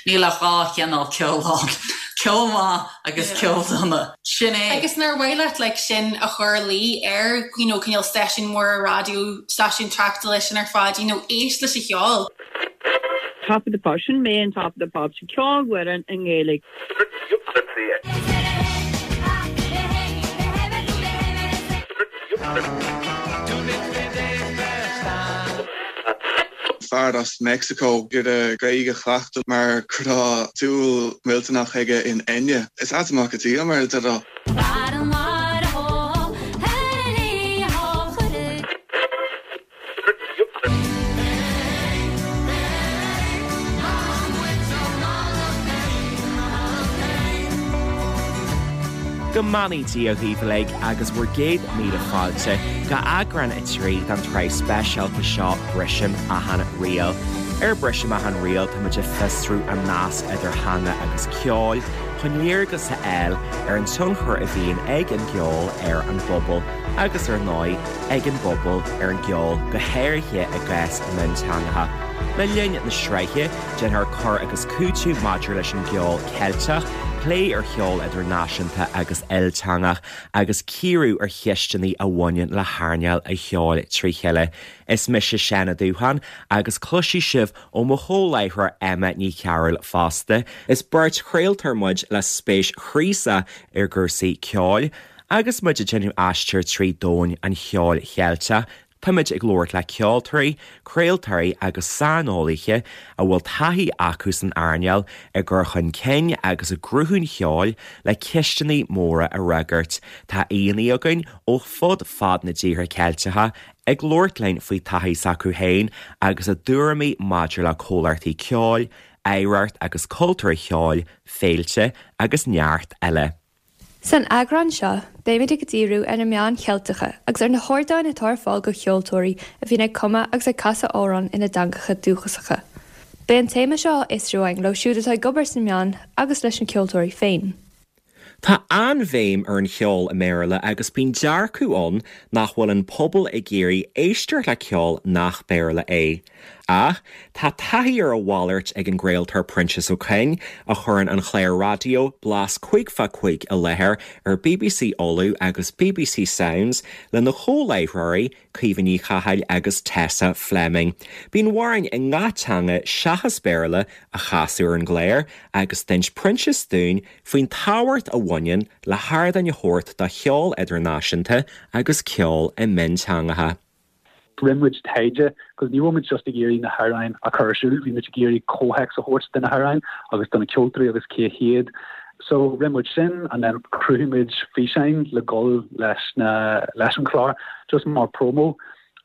Níl ach 2 chineál ceoil ann, ceol maith agus ceol dona. Sin é. Agus nár mhaith leat like sin a chur i luí ar you know cineál stáisiún mór raidió, stáisiún tráchtála sin ar fad, you know éist leis an cheol. Top of the Pops, sin mé in Top of the Pops, ceolfhoireann i nGaeilge. Fear as Meicsiceo ag iarraidh Gaeilge a chleachtadh mar go raibh dúil mhillteanach aige in Enya. Is ait an mac an tsíoth, mar a déarfá. Go mbeannaí Dia dhaoibh uilig agus bhur gcéad míle fáilte go eagrán 3 den tsraith speisialta seo Brisim Achan Riail. Ar Brisim Achan Riail táimid ag fiosrú an nasc idir theanga agus ceol chun léargas a fháil ar an tionchar a bhíonn ag an gceol ar an bpobal agus ar ndóigh ag an bpobal ar an gceol, go háirithe i gcás mionteangacha. Le linn na sraithe, déanfar cur agus cúiteamh maidir leis an gceol Ceilteach, plé ar cheol idirnáisiúnta agus ilteangach, agus cíoradh ar cheisteanna a bhaineann le hearnáil an cheoil trí chéile. Is mise Seán Ó Dúcháin agus cloisfidh sibh ó mo chomhláithreoir Emma Ní Chearúil fosta. Is beirt chraoltóir muid le spéis chraosach i gcúrsaí ceoil. Agus muid ag déanamh aistir trí domhan an cheoil Cheilteach, táimid ag labhairt le ceoltóirí, craoltóirí agus saineolaithe a bhfuil taithí acu san earnáil i gcur chun cinn agus i gcruthú an cheoil le ceisteanna móra a fhreagairt. Tá aíonna againn ó fud fad na dtíortha Ceilteacha ag labhairt linn faoi taithí s'acu féin agus a dtuairimí maidir le comhlachtaí ceoil, oidhreacht agus cultúr an cheoil, féilte agus neart eile. San eagrán seo, beimid ag díriú ar na meáin Cheilteacha agus ar na hardáin atá ar fáil do cheoltóirí a bhíonn ag cumadh agus ag casadh amhrán ina dteangacha dúchasacha. Beidh an téama seo á fhiosrú againn leo siúd atá ag obair sna meáin agus leis na ceoltóirí féin. Tá an-bhéim ar an cheol i mBéarla agus bíonn dearcadh ann nach bhfuil an pobal ag iarraidh éisteacht le ceol nach Béarla é. Ach tá taithí ar a mhalairt ag an gcraoltóir Proinsias Ó Coinn, a chuireann an clár raidió Blas 5 fá 5 i láthair ar bbc Uladh agus bbc Sounds lena chomhláithreoirí, Caoimhe Ní Chathail agus Tessa Fleming. Bíonn amhráin i ngach teanga seachas Béarla á chasadh ar an gclár agus d'inis Proinsias dúinn faoin tábhacht a bhaineann le hardáin a thabhairt do cheol idirnáisiúnta agus ceol i mionteangacha. Rinne muid taighde cos ní raibh muid just ag iarraidh na hamhráin a chur ar siúl, bhí muid ag iarraidh comhthéacs a thabhairt do na hamhráin agus do na ceoltóirí agus cé hiad. So rinne muid sin and then chruthaigh muid físeáin le dhul leis na leis an chlár just mar promo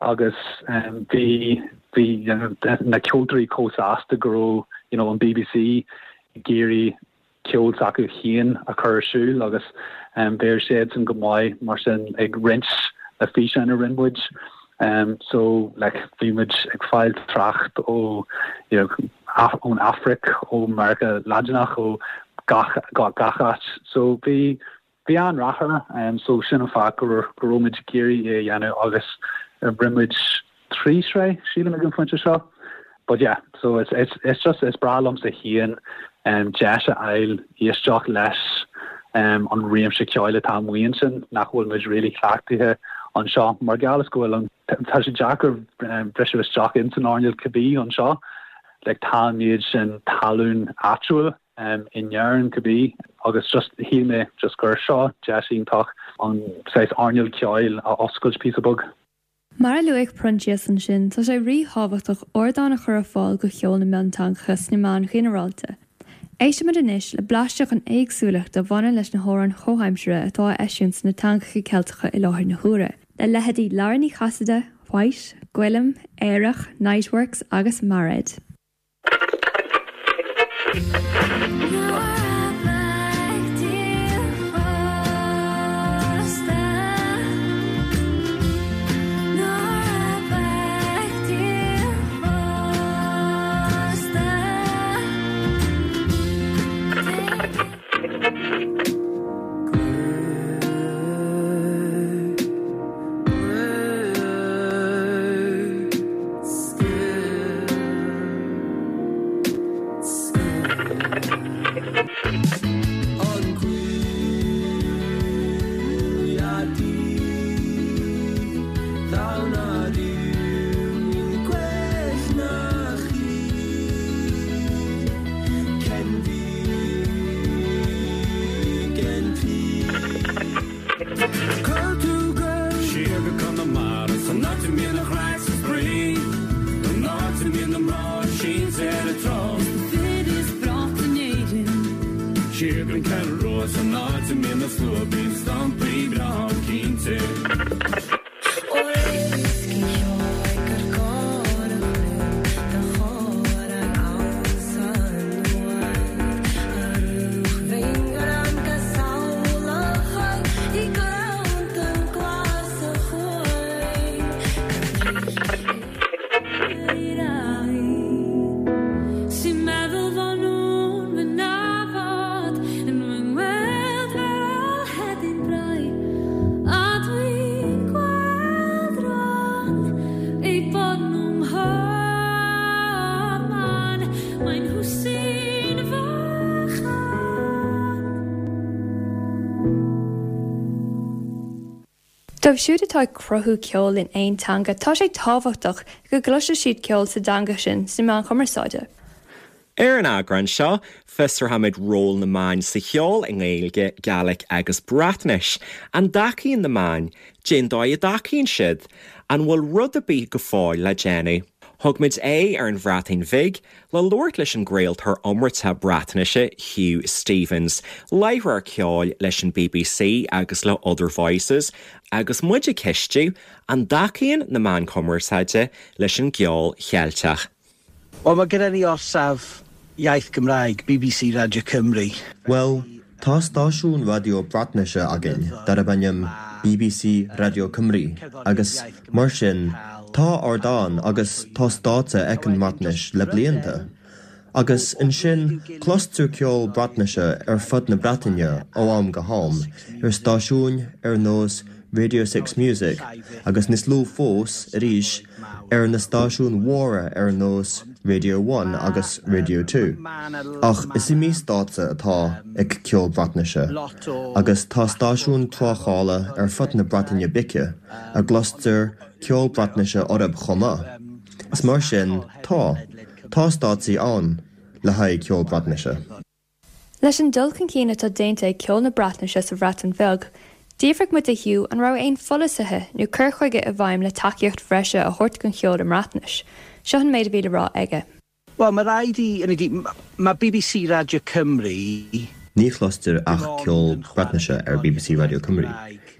agus um, bhí bhí you know, na ceoltóirí chomh sásta go raibh you know, an BBC ag iarraidh ceol s'acu féin a chur ar siúl agus bheir siadsan go maith mar sin ag roinnt na físeáin a rinne muid. So like bhí muid ag fáil trácht ó you know ón Afraic, ó Meiriceá Laidineach, ó gach gach áit. So bhí Bhí an-rath air, so sin an fáth go raibh muid ag iarraidh é a dhéanamh agus rinne muid trí shraith, sílim, ag an phointe seo. But yeah, so it's, it's, it's just, is breá liomsa féin deis a fháil éisteacht leis an réimse ceoil atá amuigh ansin nach bhfuil muid really cleachtaithe anseo mar gheall is go bhfuil an, tá sé deacair briseadh isteach ins an earnáil cibé anseo, like tá an méid sin talún áitiúil in Éirinn cibé agus just shíl mé just gur seo deis iontach an saghas earnáil ceoil a oscailt píosa beag. Mar a luaigh Proinsias ansin, tá sé ríthábhachtach ardán a chur ar fáil do cheol na mionteangacha sna meáin ghinearálta. Éistfimid anois le blaiseadh den éagsúlacht a bhaineann leis na hamhráin chomhaimseartha atá á eisiúint sna teangacha Ceilteacha i láthair na huaire, le leithéidí Lara Ní Chasaide, White, Gwilym, Aerach, Niteworks agus Mairéad. Siar gon Cheathrú Rua san áit a mbíonn na slua bíonn stampaí breá ann cinnte. Dóibh siúd atá ag cruthú ceoil in aon teanga, tá sé tábhachtach go gcloisfidh siad ceol sa dteanga sin sna meáin chumarsáide. Ar an eagrán seo, fiosróimid ról na meáin sa cheol i nGaeilge, Gàidhlig agus Breatnais. An dtacaíonn na meáin? Cén dóigh a dtacaíonn siad? An bhfuil rud ar bith go fóill le déanamh? Thug muid aghaidh ar an Bhreatain Bhig le labhairt leis an gcraoltóir iomráiteach Breatnaise Huw Stephens, láithreoir ceoil leis an bbc agus le Other Voices, agus muid ag ceistiú an dtacaíonn na meáin chumarsáide leis an gceol Cheilteach. Wel mae gyda ni orsaf iaith Gymraeg, bbc Radio Cymru. Bhuel, tá stáisiún raidió Breatnaise againn darb ainm bbc Radio Cymru agus Mar sin, tá ardán agus tá stáitse ag an mBreatnais le blianta. Agus ansin cloistear ceol Breatnaise ar fud na Breataine ó am go ham ar stáisiúin ar nós Radio 6 Music agus níos lú fós arís ar na stáisiúin mhóra ar nós Radio One agus Radio 2. Ach is iomaí stáitse atá ag ceol Breatnaise agus tá stáisiúin tráchtála ar fud na Breataine Bige. a gcloistear ceol Breatnaise orthu chomh maith. Is mar sin, tá. Tá stáitsí ann le haghaidh ceol Breatnaise. Leis an dul chun cinn atá déanta ag ceol na Breatnaise sa Bhreatain Bheag, d'fhiafraigh muid de Huw an raibh aon pholasaithe nó cur chuige i bhfeidhm le tacaíocht bhreise a thabhairt don cheol i mBreatnais. Seo an méid a bhí le rá aige. Wel, mae rhaid i... Hynny ydi, mae bbc Radio Cymru... Ní chloistear ach ceol Breatnaise ar bbc Radio Cymru.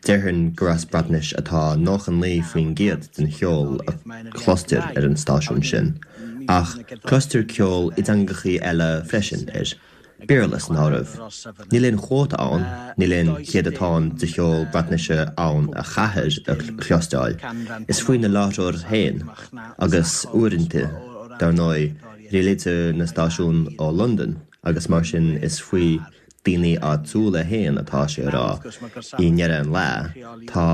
Déarfainn gur as Breatnais atá 99% den cheol a chloistear ar an stáisiún sin, ach cloistear ceol i dteangachaí eile freisin air. Béarla san áireamh. Níl aon chuóta ann, níl aon chéadatán de cheol Breatnaise ann a chaithfear a chloisteáil. Is faoi na láithreoirí féin, agus uaireanta, dar ndóigh, rialaítear na stáisiúin ó Londain agus mar sin is faoi daoine áitiúla féin atá sé a rá, i ndeireadh an lae, tá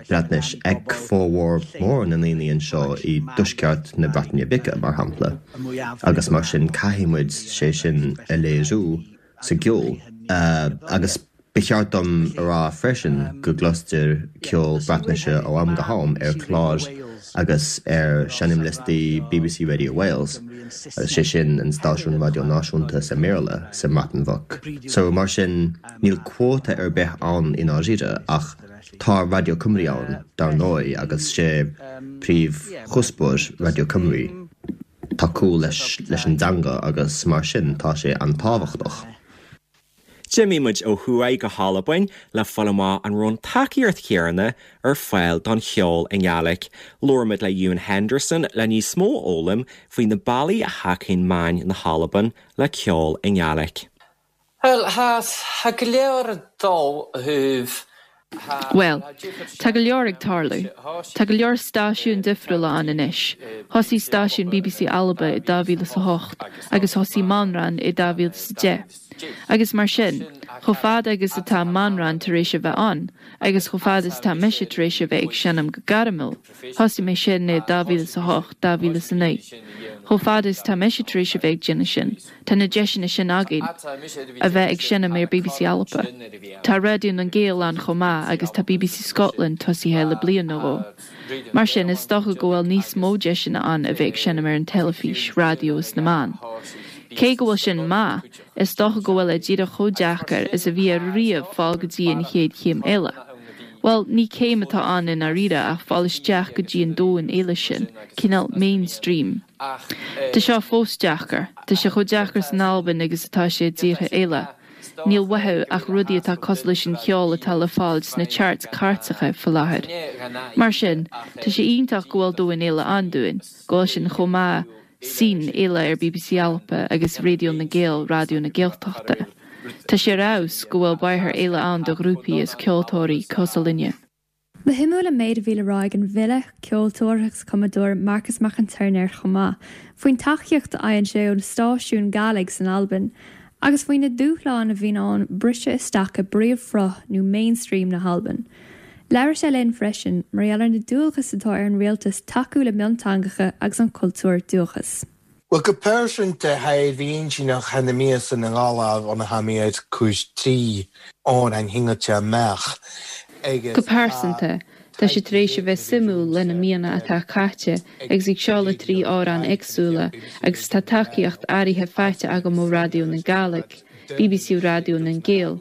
Breatnais ag formhór mór na ndaoine anseo i dtuaisceart na Breataine Bige, mar shampla, agus mar sin caithfidh muid sé sin a léiriú sa gceol. Agus ba cheart dom a rá freisin go gcloistear ceol Breatnaise ó am go ham ar chláir agus ar sheinnmliostaí bbc Radio Wales, agus sé sin an stáisiún raidió náisiúnta sa mBéarla sa mBreatain Bheag. So mar sin níl cuóta ar bith ann i ndáiríre ach tá Radio Cymru ann dar ndóigh agus sé príomhchuspóir Radio Cymru tacú leis leis an dteanga agus mar sin tá sé an-tábhachtach. D'imigh muid ó thuaidh go hAlbain le fáil amach an raibh an tacaíocht chéanna ar fáil don cheol i nGàidhlig. Labhair muid le Ewan Henderson le níos mó a fhoghlaim faoi na bealaí a thacaíonn meáin na hAlban le ceol i nGàidhlig. Bhuel, tha go leor ag dol ó thaobh Bhuel, tá go leor ag tarlú. Tá go leor stáisiúin difriúla ann anois. Thosaigh stáisiún bbc Alba i 2008 agus thosaigh Manran i 2010. Agus mar sin, chomh fada agus atá Manran tar éis a bheith ann, agus chomh fada is atá mise tar éis a bheith ag seinm go gairmiúil, thosaigh mé sin i 2008, 2009, chomh fada is atá mise tar éis a bheith ag déanamh sin, Tá na deiseanna sin againn a bheith ag seinm ar bbc Alba. Tá Raidió nan Gàidheal ann chomh maith agus tá bbc Scotland tosaithe le bliain nó dhó. Mar sin, is dócha go bhfuil níos mó deiseanna ann a bheith ag seinm ar an teilifís, raidió is na meáin. Cé go bhfuil sin maith, is dócha go bhfuil é díreach chomh deacair is a bhí ariamh fáil go dtí an chéad chéim eile. Bhuel, ní céim atá ann i ndáiríre ach fáil isteach go dtí an domhan eile sin, cineál mainstream. Tá seo fós deacair. Tá sé chomh deacair san Albain agus atá sé i dtíortha eile. Níl uathu ach rudaí atá cosúil leis an cheol atá le fáil sna charts cairteacha faoi láthair. Mar sin, tá sé iontach go bhfuil domhan eile ann dúinn, go bhfuil sin chomh maith scene eile ar bbc Alba agus Raidió na nGael, Raidió na Gaeltachta. Tá sé ar fheabhas go bhfuil bóthar eile ann do ghrúpaí is ceoltóirí cosúil linne. Ba shuimiúil an méid a bhí le rá ag an bhfile, ceoltóir agus cumadóir Marcas Mac an Tuairneir chomh maith, faoin tacaíocht a fhaigheann sé ó na stáisiúin Gàidhlig san Albain, agus faoi na dúshláin a bhíonn ann briseadh isteach i bpríomhshruth nó mainstream na hAlban. Labhair sé linn freisin mar gheall ar na dualgais atá ar an rialtas tacú le mionteangacha agus an cultúr dúchais. Bhuel, go pearsanta, tha mi na míosa na nGallaibh ionair tha mi ag cur tri òrain shingilte amach agus Go pearsanta, tá sé tar éis a bheith suimiúil le na míonna atá caite agus ag seoladh tri amhrán éagsúla agus tá tacaíocht áirithe faighte agam ó Raidió na Gàidhlig, bbc Raidió nan Gael.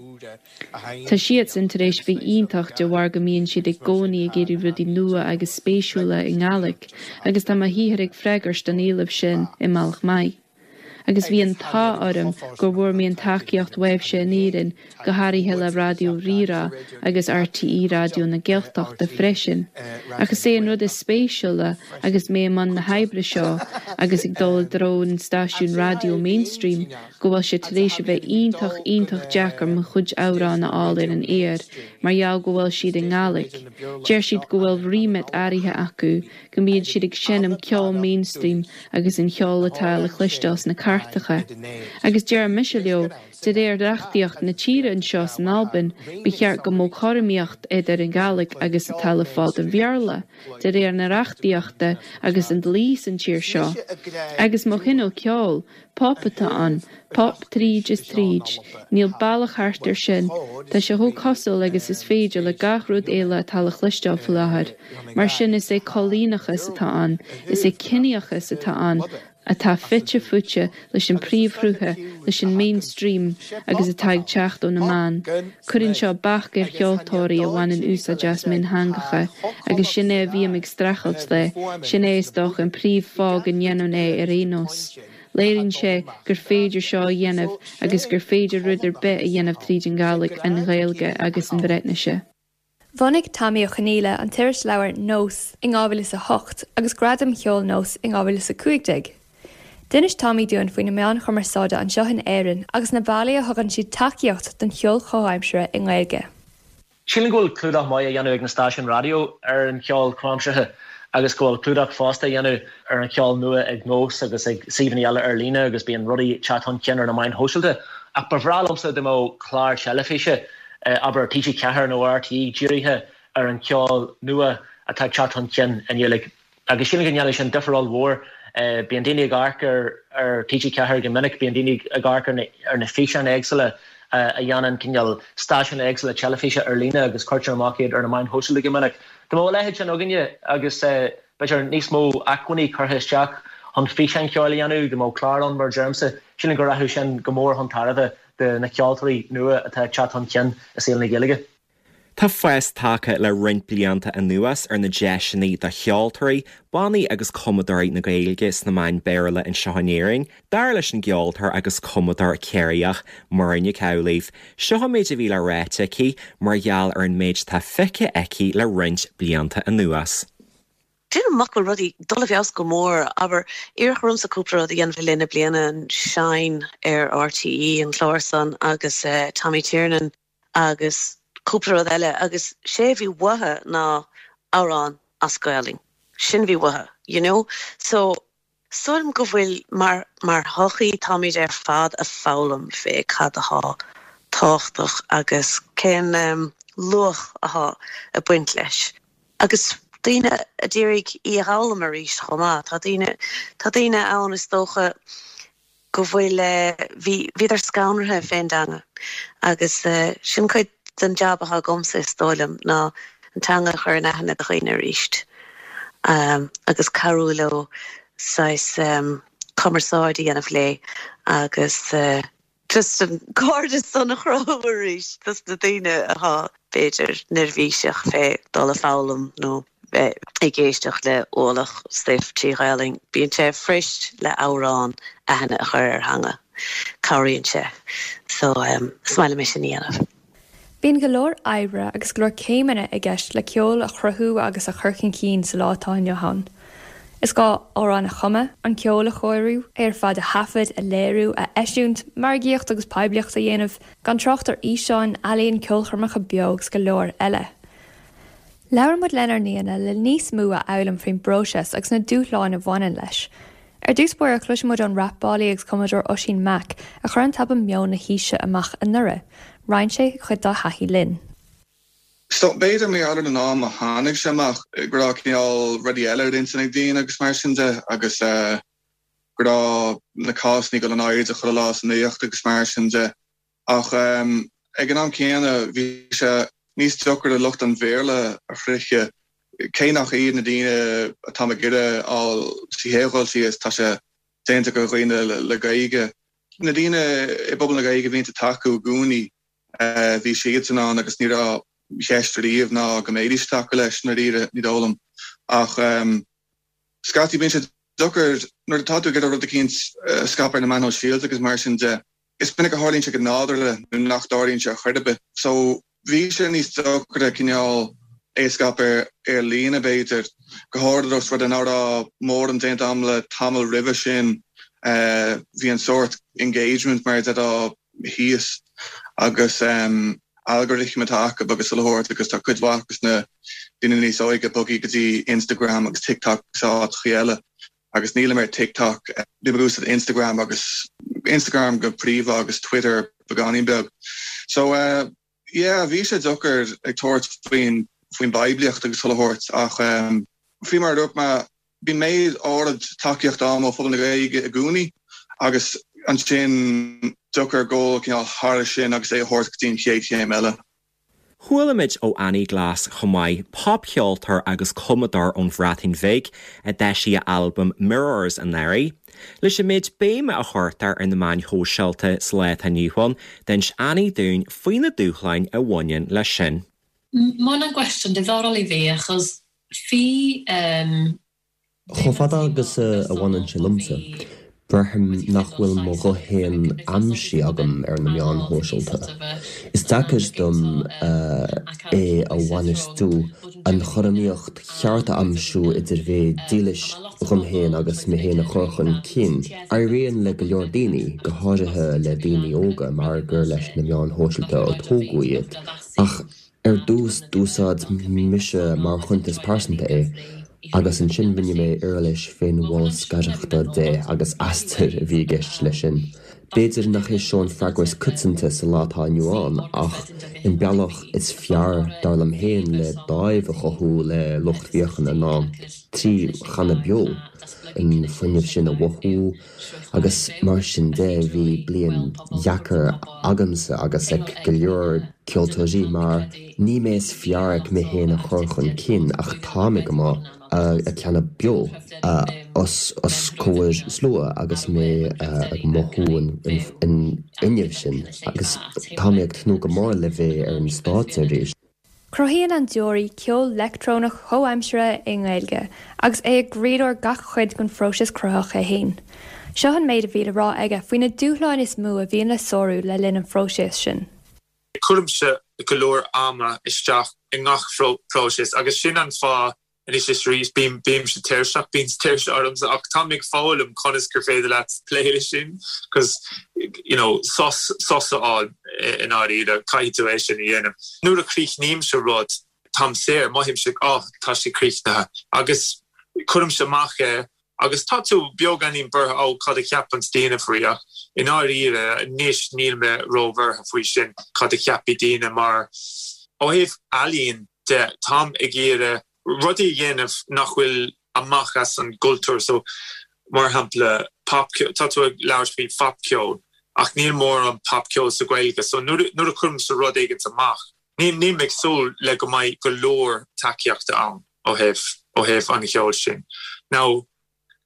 Tá siadsan tar éis bheith iontach de bharr go mbíonn siad i gcónaí ag iarraidh rudaí nua agus spéisiúla i nGàidhlig agus tá mo shaothar ag freagairt don éileamh sin i mbealach maith. Agus bhí an t-ádh orm gur bhfuair mé an tacaíocht uaibhse in Éirinn, go háirithe le Raidió Rí-Rá agus RTÉ Raidió na Gaeltachta freisin. Ach is é an rud is spéisiúla agus mé i mbun na hoibre seo agus ag dul i dtreo an stáisiún raidió mainstream go bhfuil sé tar éis a bheith iontach, iontach deacair mo chuid amhrán a fháil ar an aer mar gheall go bhfuil siad i nGàidhlig. Deir siad go bhfuil remit áirithe acu, go mbíonn siad ag seinm ceol mainstream agus an cheol atá le cloisteáil sna cairteacha. Agus deir mise leo, de réir reachtaíocht na tíre anseo san Albain, ba cheart go mbeadh cothromaíocht idir an Ghàidhlig agus atá le fáil don Bhéarla. de réir na reachtaíochta agus an dlí san tír seo. Agus mo chineál ceoil, pop atá ann, pop tríd is tríd, níl bealach thart ar sin, tá sé chomh cosúil agus is féidir le gach rud eile atá le chloisteáil faoi láthair. Mar sin is é coilíneachas atá ann, is é ciníochas atá ann, atá fite fuaite leis an príomhshrutha, leis an mainstream agus atá ag teacht ó na meáin. Cuireann seo bac ar cheoltóirí a bhaineann úsáid as miontheangacha agus sin é a bhím ag streachailt le, sin é is dócha an príomh fáth go ndéanaim é ar aon nós. Léiríonn sé gur féidir seo a dhéanamh agus gur féidir rud ar bith a dhéanamh tríd an Ghàidhlig, an Ghaeilge agus an Bhreatnaise. Bhunaigh Tommy Ó Conghaile an t-irisleabhar Nós in 2008 agus Gradaim Cheoil Nós in 2015. D'inis Tommy dúinn faoi na meáin chumarsáide anseo in Éirinn agus na bealaí a thugann siad tacaíocht don cheol chomhaimseartha i nGaeilge. Sílim go bhfuil clúdach maith á dhéanamh ag na stáisiúin raidió ar an cheol comhaimseartha agus go bhfuil clúdach fosta á dhéanamh ar an cheol nua ag Nós agus ag suíomhanna eile ar líne agus bíonn rudaí ag teacht chun cinn ar na meáin shóisialta. Ach ba bhreá liomsa dá mbeadh clár teilifíse abair TG4 nó RTÉ dírithe ar an cheol nua atá ag teacht chun cinn i nGaeilge. Agus sílim go ndéanfadh sin difear ollmhór. Bíonn daoine ag amharc ar TG4 go minic, bíonn daoine ag amharc ar na físeáin éagsúla a dhéanann cineál stáisiúin éagsúla teilifíse ar líne agus cuirtear amach iad ar na meáin shóisialta go minic. Dá mbeadh a leithéid sin againne agus b'fhéidir níos mó acmhainní curtha isteach chun físeáin cheoil a dhéanamh, dá mbeadh clár ann mar a deirimse, sílim go rachadh sin go mór chun tairbhe de na ceoltóirí nua atá ag teacht chun cinn i saol na Gaeilge. Tá fás tagtha le roinnt blianta anuas ar na deiseanna do cheoltóirí, bannaí agus cumadóirí na Gaeilge sna meáin Béarla anseo in Éirinn, dar leis an gceoltóir agus cumadóir Ciarraíoch, Muireann Nic Amhlaoibh. Seo an méid a bhí le ráite aici mar gheall ar an méid atá feicthe aici le roinnt blianta anuas. Déanaim amach go bhfuil rudaí ag dul i bhfeabhas go mór. Abair, iarradh ormsa cúpla rud a dhéanamh le linn na bliana, an Shine ar RTÉ, an clár san, agus Tommy Tiernan agus cúpla rud eile agus sé a bhí uathu ná amhrán as Gaolainn. Sin a bhí uathu, you know. So, Sílim go bhfuil, mar, mar shochaí, táimid ar fad a' foghlaim fé cad athá tábhachtach agus cén luach athá a' baint leis. Agus daoine a d'iarraidh í a dh'fhoghlaim arís chomh maith. Tá daoine, tá daoine ann is dócha go bhfuil, bhí, bhíodar scanraithe fén dteanga agus sin cuid den jab athá agamsa is dóigh liom ná an teanga a chur in aithne do dhaoine arís agus cabhrú leo saghas cumarsáid a dhéanamh léi agus just an cairdeas san a chruthú arís dos na daoine athá b'fhéidir neirbhíseach fé dul a foghlaim nó bheith ag éisteacht le ualach stuif trí Ghaelainn. Bíonn sé fuirist le amhrán aithne a chur ar theanga. Cabhraíonn sé. So is maith liom é sin a dhéanamh. Bíonn go leor oibre agus go leor céimeanna i gceist le ceol a chruthú agus a chur chun cinn sa lá atá inniu ann. Is gá amhrán a chumadh, an ceol a chóiriú, é ar fad a thaifead, a léiriú, a eisiúint, margaíocht agus poiblíocht a dhéanamh, gan trácht ar fhíseáin, ealaíon, ceolchoirmeacha beo agus go leor eile. Labhair muid lenár n-aíonna le níos mó a fhoghlaim faoin bpróiseas agus na dúshláin a bhaineann leis. Ar dtús báire, cloisfidh muid ón rapálaí agus cumadóir Oisín Mac, a chuir an t-albam Meon na hAoise amach anuraidh. Roinn sé cuid dá thaithí linn. So, b'fhéidir mar gheall ar an am a tháinig sé amach, go raibh cineál rudaí eile ar intinn ag daoine agus mar sin de agus go raibh na cásanna ag dul in airde chuile lá sa nuacht agus mar sin de. Ach ag an am céanna bhí sé níos deacair lucht an Bhéarla a shroicheadh, cé nach iad na daoine atáim ag iarraidh a fháil sa chéad dhul síos, tá sé déanta do dhaoine le Gaeilge. Na daoine i bpobal na Gaeilge a bhíonn ag tacú i gcónaí, bhí siadsan ann agus ní raibh ceist ariamh ná go mbeidís ag tacú leis, i ndáiríre, ní dóigh liom. Ach scaití bíonn sé deacair nuair atá tú ag iarraidh rud eicínt a scaipeadh ar na meáin shóisialta agus mar sin de. Is minic a tharlaíonn sé go nádúrtha nó nach dtarlaíonn sé ar chor ar bith. So bhí sé níos deacra cineál é a scaipeadh ar líne b'fhéidir, go háirithe os rud é nach raibh mórán déanta agam le tamall roimhe sin. Bhí an sórt engagement mar a déarfá thíos agus algorithm atá acu agus chuile shórt agus tá cuid mhaith de na daoine níos óige bogtha go dtí Instagram agus TikTok agus áiteachaí eile. Agus nílim ar TikTok, bím ag úsáid Instagram agus Instagram go príomha agus Twitter beagáinín beag. So yeah, bhí sé deacair ag tabhairt faoin faoin bpoiblíocht agus chuile shórt ach faoi mar a dúirt mé, bíonn méid áirid tacaíochta agam ó phobal na Gaeilge i gcónaí agus ansin deacair dul cineál thar sin agus é a thabhairt go dtí an chéad chéim eile. Chuala muid ó Annie Glass chomh maith, popcheoltóir agus cumadóir ón Bhreatain Bhig, a d'eisigh a albam Mirrors anuraidh. Leis an méid béime a chuirtear ar na meáin shóisialta sa lá atá inniu ann, d'inis Annie dúinn faoi na dúshláin a bhaineann leis sin. Ma hwnna'n gwestiwn diddorol i fi achos fi yym Chomh fada agus a bhaineann sé liomsa, braithim nach bhfuil mo ghuth féin aimsithe agam ar na meáin shóisialta. Is deacair dom é a bhainistiú, an chothromaíocht cheart a aimsiú idir bheith dílis dhom féin agus mé féin a chur chun cinn. Éiríonn le go leor daoine, go háirithe le daoine óga mar gur leis na meáin shóisialta a tógadh iad, ach Ar dtús, d'úsáid mise mar chuntas pearsanta é, agus ansin rinne mé uirlis féinbholscaireachta de agus aistear a bhí i gceist leis sin. B'fhéidir nach é seo an freagra is coitianta sa lá atá inniu ann, ach an bealach is fearr, dar liom féin, le dáimh a chothú le lucht féachana ná trí chanadh beo, an fuinneamh sin a mhothú, Agus mar sin de, bhí bliain dheacair agamsa agus ag go leor ceoltóirí mar ní mé is fearr ag mé féin a chur chun cinn ach tá mé go maith ag canadh beo os os comhair slua agus mé ag mothú an fhuinnimh sin agus tá mé ag tnúth go mór le bheith ar an stáitse arís. Cruthaíonn An Deoraí ceol leictreonach comhaimseartha i nGaeilge, agus é i gcroílár gach cuid den phróiseas cruthaitheach é féin. Seo an méid a bhí le rá aige faoi na dúshláin is mó a bhíonn le sárú le linn an phróiseas sin. Cuirimse go leor ama isteach i ngach próiseas agus sin an fáth Anois is arís, bím, bímse tuirseach, bíonn tuirse ormsa ach táim ag foghlaim conas gur féidir leat plé leis sin cos you know sos, sos a fháil i ndáiríre, caithfidh tú é sin a dhéanamh. Nuair a chríochnaímse rud, táim saor, mothaímse oh tá sé críochnaithe agus cuirimse amach é agus tá tú beagáinín buartha oh cad a cheapanns daoine faoi ach i ndáiríre anois níl mé róbhuartha faoi sin cad a cheapfaidh daoine mar ó thaobh ealaíon de, táim ag iarraidh rudaí a dhéanamh nach bhfuil amach as an gcultúr so mar shampla popcheol, tá tú ag labhairt faoi phopcheol ach níl mórán popcheol sa Ghaeilge so nuair a chuirimse rud éigint amach níl mé ag súil le go mbeidh go leor tacaíochta ann ó thaobh ó thaobh an cheoil sin. Now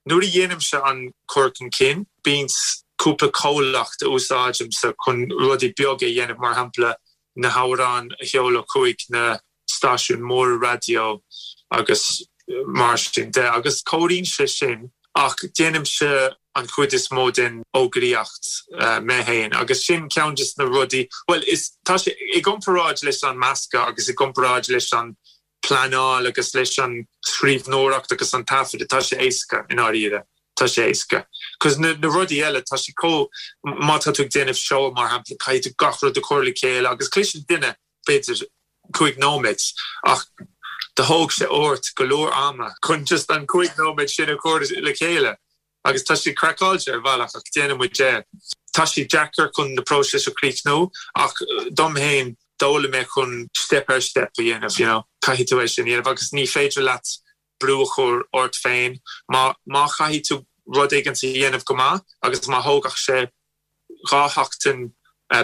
Nuair a dhéanaimse an cur chun cinn, bíonn cúpla comhlacht a úsáidimse chun rudaí beaga a dhéanamh, mar shampla na hamhráin a sheoladh chuig na stáisiúin mhóra raidió agus mar sin de, agus cabhraíonn sé sin ach déanaimse. an chuid is mó den fhógraíocht mé féin agus sin ceann des na rudaí, bhuel is, tá sé, i gcomparáid leis an meascadh agus i gcomparáid leis an pleanáil agus leis an scríbhneoireacht agus an taifeadadh, tá sé éasca i ndáiríre, tá sé éasca. Cos na na rudaí eile, tá sé chomh, má tá tú ag déanamh seó mar shampla, caithfidh tú gach rud a chur le chéile agus cliseann duine b'fhéidir 5 nóiméad ach do thóg sé ort go leor ama chun just an 5 nóiméad sin a chur le chéile. Agus tá sé craiceáilte ar bhealach ach déanann muid é. Tá sé deacair chun na próisis a chríochnú ach dom féin d'fhoghlaim mé chun step ar step a dhéanamh, you know. Caithfidh tú é sin a dhéanamh agus ní féidir leat brú a chur ort féin. Má má chaithfidh tú rud éigin a dhéanamh go maith agus má thógfadh sé 2 sheachtain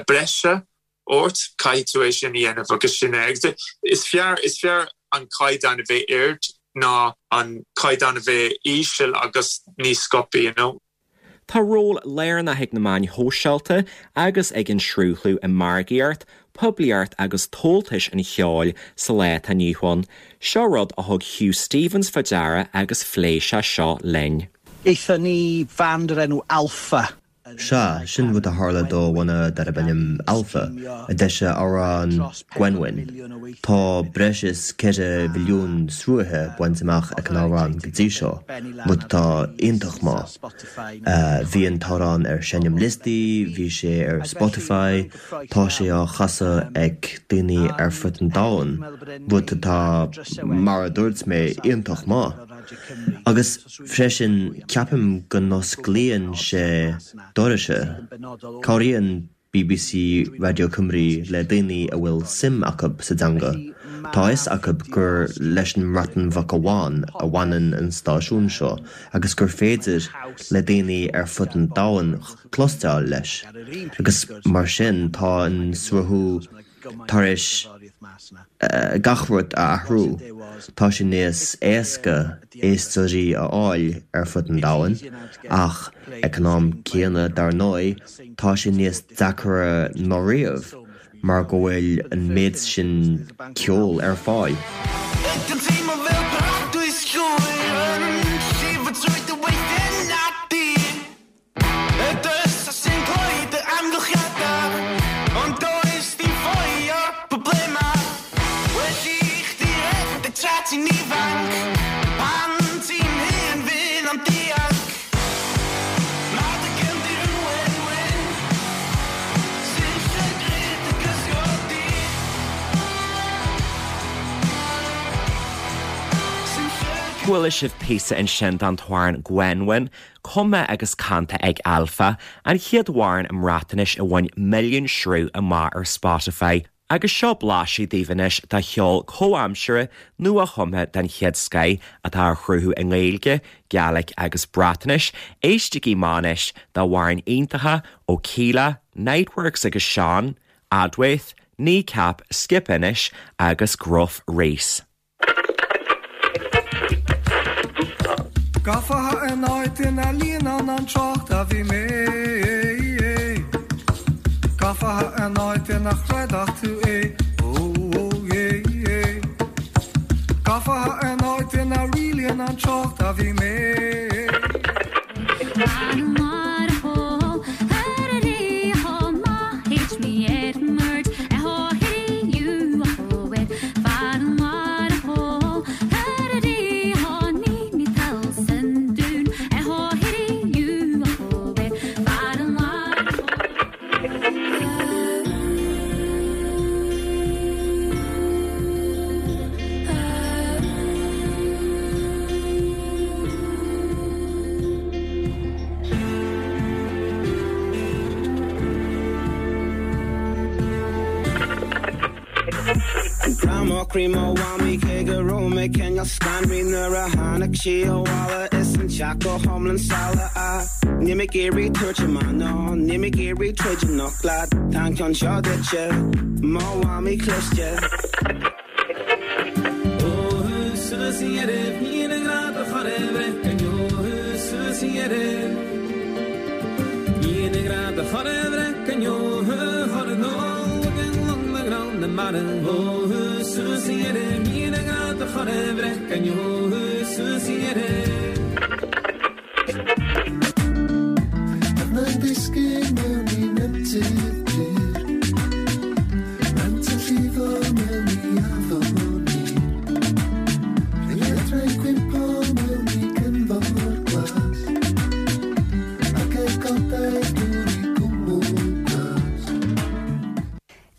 breise ort, caithfidh tú é sin a dhéanamh agus sin é. Agus is fearr, is fearr an caighdeán a bheith ard ná an caighdeán a bheith íseal agus níos sciobtha, you know. Tá ról lárnach ag na meáin shóisialta agus ag an sruthlú i margaíocht, poiblíocht agus tomhaltas an cheoil sa lá atá inniu ann. Seo rud a thug Hugh Stevens fá deara agus phléigh sé seo linn. Gaethon ni fand o'r enw Alffa. Sea, sin rud a tharla do bhanna darb ainm Alffa, a d'eisigh amhrán Gwenwyn. Tá breis is 4 mhilliún sruthaithe bainte amach ag an amhrán go dtí seo, rud atá iontach maith. Bhí an t-amhrán ar seinmliostaí, bhí sé ar Spotify, tá sé á chasadh ag daoine ar fud an domhain, rud atá, mar a dúirt mé, iontach maith. Agus. Freisin, ceapaim go n-osclaíonn sé dorais. Cabhraíonn bbc Radio Cymru le daoine a bhfuil suim acu sa dteanga. Tá a fhios acu gur leis an mBreatain Bheag amháin a bhaineann an stáisiún seo agus gur féidir le daoine ar fud an domhain cloisteáil leis. Agus mar sin tá an sruthú tar éis gach rud a athrú. Tá sé níos éasca éisteoirí a fháil ar fud an domhain, ach ag an am céanna, dar ndóigh, tá sé níos deacra ná riamh mar go bhfuil an méid sin ceoil ar fáil. Y dyrys sy'n cloi dy amgylchiadau Ond does dim ffoi o'r problemau Well i chdi redeg tra ti'n ifanc Pan ti'n hŷn fydd o'n dianc Mae dy gefndir yn wenwyn Sy'n llygru dy gysgod di Sy'n llygru Chuala sibh píosa ansin den t-amhrán Gwenwyn, Cumtha agus canta ag Alffa, an chéad amhrán i mBreatnais a bhain milliún sruth amach ar Spotify. Agus seo blaiseadh daoibh anois de cheol comhaimseartha, nua-chumtha den chéad scoith atá á chruthú i nGaeilge, Gaelic agus Breatnais. Éistigí amach anois d'amhráin iontacha ó Kíla, Niteworks agus Sean, Adwaith, Kneecap, Skip Intern agus Gruff Rhys. Gafa in áit ina líonann an trácht a bhí mé Gafa in áit ina chreidfeadh tú é ó ó é é Gafa in áit ina rialaíonn an trácht a bhí mé. Grá mo chroí mo mhamaí cé go raibh mé cineál scanraithe nuair a tháinig sí abhaile is an teach go hiomlán salach ah Níl mé ag iarraidh tabhairt amach ná níl mé ag iarraidh troid anocht leat tá an ceann seo duitse mo mhamaí cliste. Ó suas a dheireadh níl a ngrá do chur i bhfrith go ndeo suas a dheireadh Níl a ngrá do chur i bhfrith go ndeo chur i ndó na mara Ó suas a dheireadh níl a ngrá do chur i bhfrith go ndeo suas a dheireadh.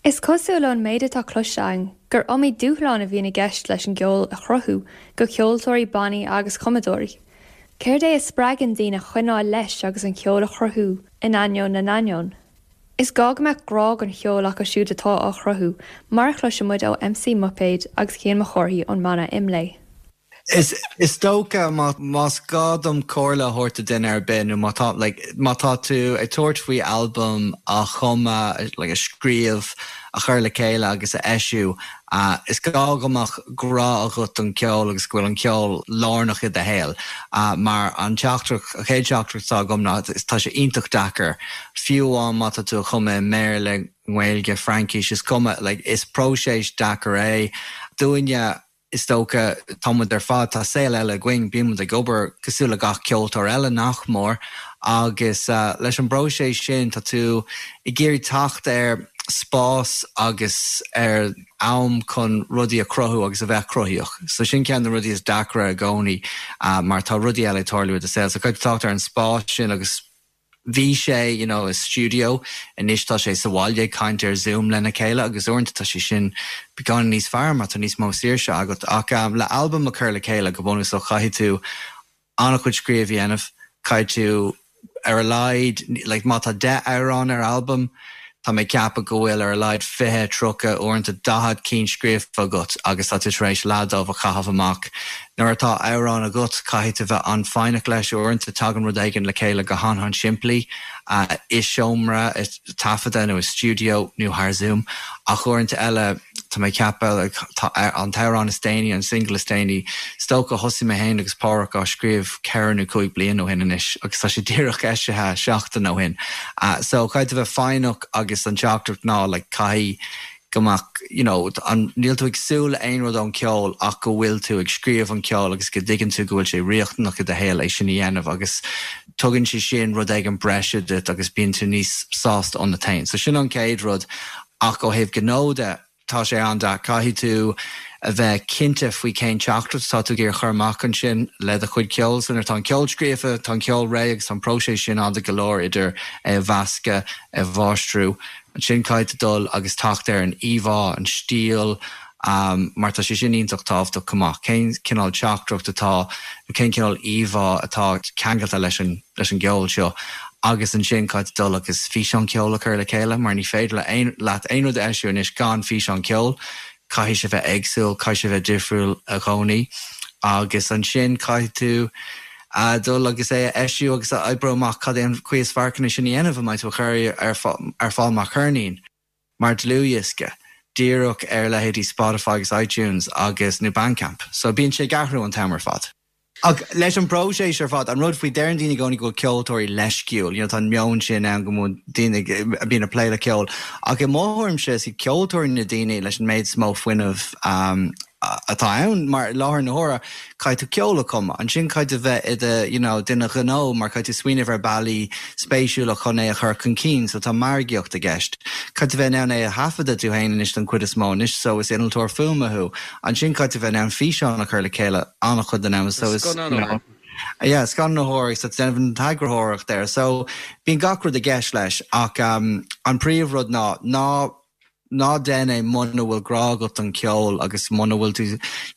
Is cosúil ón méid atá cloiste againn gur iomaí dúshlán a bhíonn i gceist leis an gceol a chruthú go ceoltóirí, bannaí agus cumadóirí. Céard é a spreagann daoine coinneáil leis agus an ceol a chruthú in ainneoin na n-ainneoin? Is gá go mbeadh grá don cheol acu siúd atá á chruthú, mar a chloiseann muid ó MC Muipéad agus Cian Mac Cárthaigh ón mbanna Imlé. Is is dócha má más gá dom comhairle a thabhairt do duine ar bith nó má tá like má tá tú ag tabhairt faoi albam a chumadh like a scríobh, a chur le chéile agus a eisiú, is gá go mbeadh grá agat don cheol agus go bhfuil an ceol lárnach i do shaol. Mar an teachtaireacht, an chéad teachtaireacht atá agam ná tá sé iontach deacair, fiú amháin má tá tú a chumadh i mBéarla, nGaeilge, Fraincis, is cuma, like is próiseas deacair é. Dúinne, Is dócha, tá muid ar fad, tá saol eile againn, bíonn muid ag obair cosúil le gach ceoltóir eile, nach mór, agus leis an bpróiseas sin tá tú ag iarraidh teacht ar spás agus ar am chun rudaí a chruthú agus a bheith cruthaíoch. So sin ceann de na rudaí is deacra i gcónaí mar tá rudaí eile ag tarlú i do saol. So caithfidh tú teacht ar an spás sin agus Bhí sé, you know, i stiúideo, anois tá sé sa bhaile ag caint ar Zoom lena chéile agus uaireanta tá sé sin beagáinín níos fearr mar tá níos mó saoirse agat. Ach le albam a chur le chéile, go bunúsach, caithfidh tú an-chuid scríobh a dhéanamh, caithfidh tú ar a laghad, like má tá 10 amhrán ar albam, Tá mé ag ceapadh go bhfuil ar a laghad 20, 30, uaireanta 40 cinn scríofa agat agus tá tú tar éis leath dóibh a chaitheamh amach. Nuair atá amhrán agat, caithfidh tú bheith an-fhoighneach leis. Uaireanta tagann rud éigin le chéile go han-han-simplí i seomra taifeadta nó i stiúideo nó thar Zoom ach uaireanta eile, Tá mé ag ceapadh, tá an t-amhrán is déanaí, an single is déanaí, is dócha, thosaigh mé féin agus Páraic á scríobh ceithre nó cúig bliana ó shin anois agus tá sé díreach eisithe seachtain ó shin. So caithfidh tú bheith foighneach agus an teachtaireacht ná like caithfidh go mbeadh, you know, an, níl tú ag súil le aon rud ón ceol ach go bhfuil tú ag scríobh an ceol agus go dtuigeann tú go bhfuil sé riachtanach i do shaol é sin a dhéanamh agus tugann sé sin rud éigin breise duit agus bíonn tú níos sásta ionat féin. So sin an chéad rud. Ach ó thaobh gnó de, tá sé an-deacair. Caithfidh tú a bheith cinnte faoi cén teachtaireacht atá tú ag iarraidh a chur amach ansin le do chuid ceoil. So nuair atá an ceol scríofa, tá an ceol réidh agus tá an próiseas sin fada go leor idir é a mheascadh, é a mháistriú. Ansin caithfidh tú dul agus teacht ar an íomhá, an stíl, mar tá sé sin iontach tábhachtach chomh maith. Cén cineál teachtaireacht atá, nó cén cineál íomhá atá ceangailte leis an leis an gceol seo agus ansin caithfidh tú dul agus físeán ceoil a chur le chéile mar ní féidir le aon leat aon rud a eisiú anois gan físeán ceoil, caithfidh sé bheith éagsúil, caithfidh sé bheith difriúil i gcónaí agus ansin caithfidh tú dul agus é a eisiú agus a oibriú amach cad é an chaoi is fearr chun é sin a dhéanamh, an mbeidh tú a chur ar fáil mar cheirnín, mar dlúthdhiosca, díreach ar leithéidí Spotify agus iTunes agus nó Bandcamp. So bíonn sé ag athrú an t-am ar fad. Ach leis an bpróiseas ar fad, an rud faoi, deireann daoine i gcónaí go bhfuil ceoltóirí leisciúil, you know, tá an meon sin ann go mbíonn daoine a bhíonn ag plé le ceol, ach i mo thuairimse is iad ceoltóirí na daoine leis an méid is mó fuinnimh atá ann, mar i láthair na huaire caithfidh tú ceol a chumadh, ansin caithfidh tú bheith i do, you know, duine gnó mar caithfidh tú smaoineamh ar bealaí spéisiúla chun é a chur chun cinn, so tá margaíocht i gceist. Caithfidh tú bheith in ann é a thaifeadadh tú féin anois don chuid is mó anois, so is innealtóir fuaime thú. Ansin caithfidh tú bheith in ann físeán a chur le chéile an-chuid den am so is, you know, yeah, scannánaitheoir so déanamh an t-eagarthóireacht air. So bíonn gach rud i gceist leis ach um, an príomhrud ná ná ná déan é muna bhfuil grá agat don cheol agus muna bhfuil tú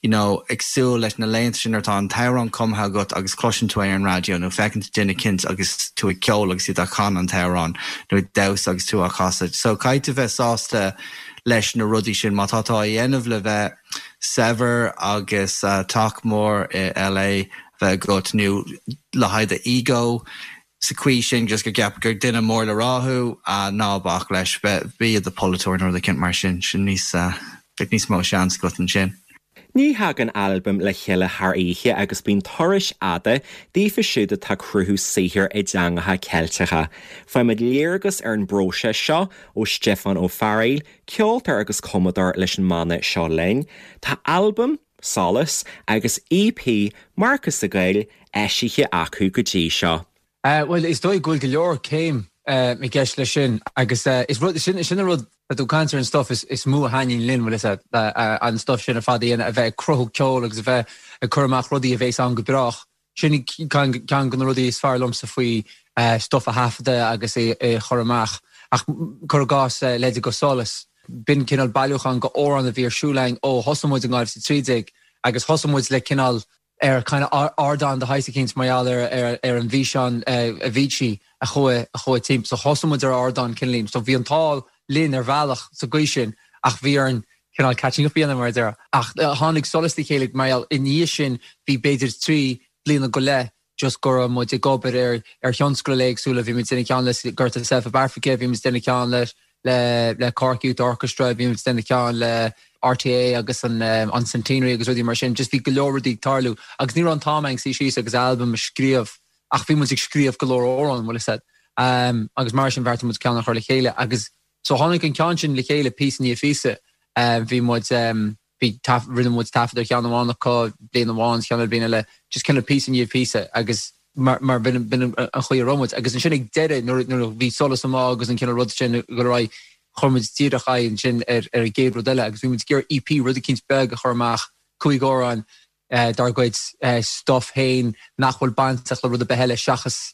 you know ag súil leis na laethanta sin nuair atá an t-amhrán cumtha agat agus cloiseann tú é ar an raidió nó feiceann tú duine eicínt agus tú ag ceol agus iad ag canadh an t-amhrán nó ag damhsa agus tú á chasadh. So caithfidh tú bheith sásta leis na rudaí sin. Má tá tú á dhéanamh le bheith saibhir agus teach mór i LA bheith agat nó le haghaidh do ego sa chaoi sin just go gceapfar gur duine mór le rá thú, ná bac leis, bí i do pholaiteoir nó rud eicínt mar sin, sin níos, bheadh níos mó seans agat ansin. Ní thagann albam le chéile thar oíche agus bíonn turais fhada daofa siúd atá ag cruthú saothair i dteangacha Ceilteacha. Faighimid léargas ar an bpróiseas seo ó Stiofán Ó Fearghaíl, ceoltóir agus cumadóir leis an mbanna Seo Linn. Tá albam, Solas, agus EP, Marcas de Gael, eisithe acu go dtí seo. Bhuel, is dóigh go bhfuil go leor céim i gceist leis sin agus is rud, sin, sin an rud, tá tú ag caint ar an stuff is, is mó a thaitníonn linn, bhfuil fhios agat, an stuff sin ar fad a dhéanamh, a bheith ag cruthú ceoil agus a bheith ag cur amach rudaí a bhéas ann go brách. Sin ceann de na rudaí is fearr liomsa faoi stuff a thaifeadadh agus é a chur amach. Ach cuir i gcás leithéidí de Solas. B'in cineál bailiúchán de amhráin a bhí ar siúl againn ó thosaigh muid in 2013 agus thosaigh muid le cineál ar kind of ardán de shaghas eicínt mar gheall ar ar an bhfíseán Avicii a chuaigh a chuaigh timpeall. So thosaigh muid ar ardán cineáilín. So bhí an t-ádh linn ar bhealach sa gcaoi sin ach bhí orainn cineál catching up a dhéanamh mar a déarfá. Ach tháinig Solas le chéile mar gheall i ndiaidh sin bhí b'fhéidir 3 bliana go leith just go raibh muid ag obair ar ar thionscadail éagsúla, bhí muid ag déanamh ceann le Gorta Self Up Africa, bhí muid ag déanamh ceann le le le Cork Youth Orchestra, bhí muid ag déanamh ceann le RTÉ agus an an Centenary agus rudaí mar sin, just bhí go leor rudaí ag tarlú agus ní raibh an t-am againn suí síos agus albam a scríobh ach bhí muid ag scríobh go leor amhrán, bhfuil a fhios agat. Agus mar sin bheartaigh muid ceann a chur le chéile agus so tháinig an ceann sin le chéile píosa i ndiaidh píosa. Bhí muid. Bhí, rinne muid taifead ar cheann amháin acu bliain amháin, ceann eile bliain eile, just cineál píosa i ndiaidh píosa agus mar, mar b'in, b'in an chaoi a raibh muid. Agus ansin ag deireadh nuair, nuair a bhí Solas amuigh agus an cineál rud sin ag dul ar aghaidh, chuir muid díreach aghaidh ansin ar, ar an gcéad rud eile agus bhí muid ag iarraidh EP, rud eicínt beag a chur amach, cúig amhrán dár gcuid stuff féin nach bhfuil bainteach le rud ar bith eile seachas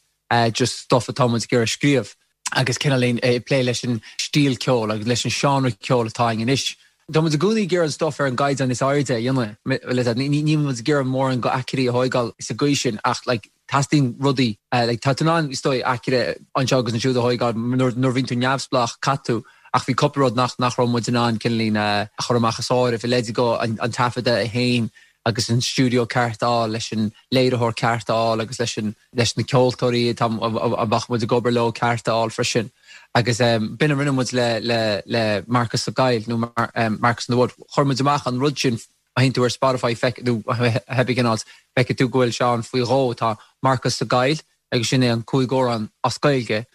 just stuff atá muid ag iarraidh scríobh. Agus cineáilín ag plé leis an stíl ceoil agus leis an seánra ceoil atá againn anois. Tá muid i gcónaí ag iarraidh an stuff ar an gcaighdeán is airde a dhéanamh. Níl muid ag iarraidh mórán go aicearraí a thóigeáil sa gcaoi sin ach like teastaíonn rudaí like tá tú in ann is dóigh aicearra anseo agus ansiúd a thóigeáil nuair nuair a bhíonn tú neamhspleách caithfidh tú ach bhí cúpla rud nach nach raibh muid in ann cineáilín a chur amach as áireamh i leide go an an taifeadadh féin agus an stiúideo ceart a fháil leis an léiritheoir ceart a fháil agus leis an leis na ceoltóirí atá a mbeadh muid ag obair leo ceart a fháil freisin agus b'in a rinne muid le le le Marcas Ó Gaill nó Marcas in the Wood chuir muid amach an rud sin Má théann tú ar Spotify feic nó cibé cén áit, feicfidh tú go bhfuil sé ann faoi dhó. Tá Marcas Ó Gaill agus sin é an cúig amhrán as Gaeilge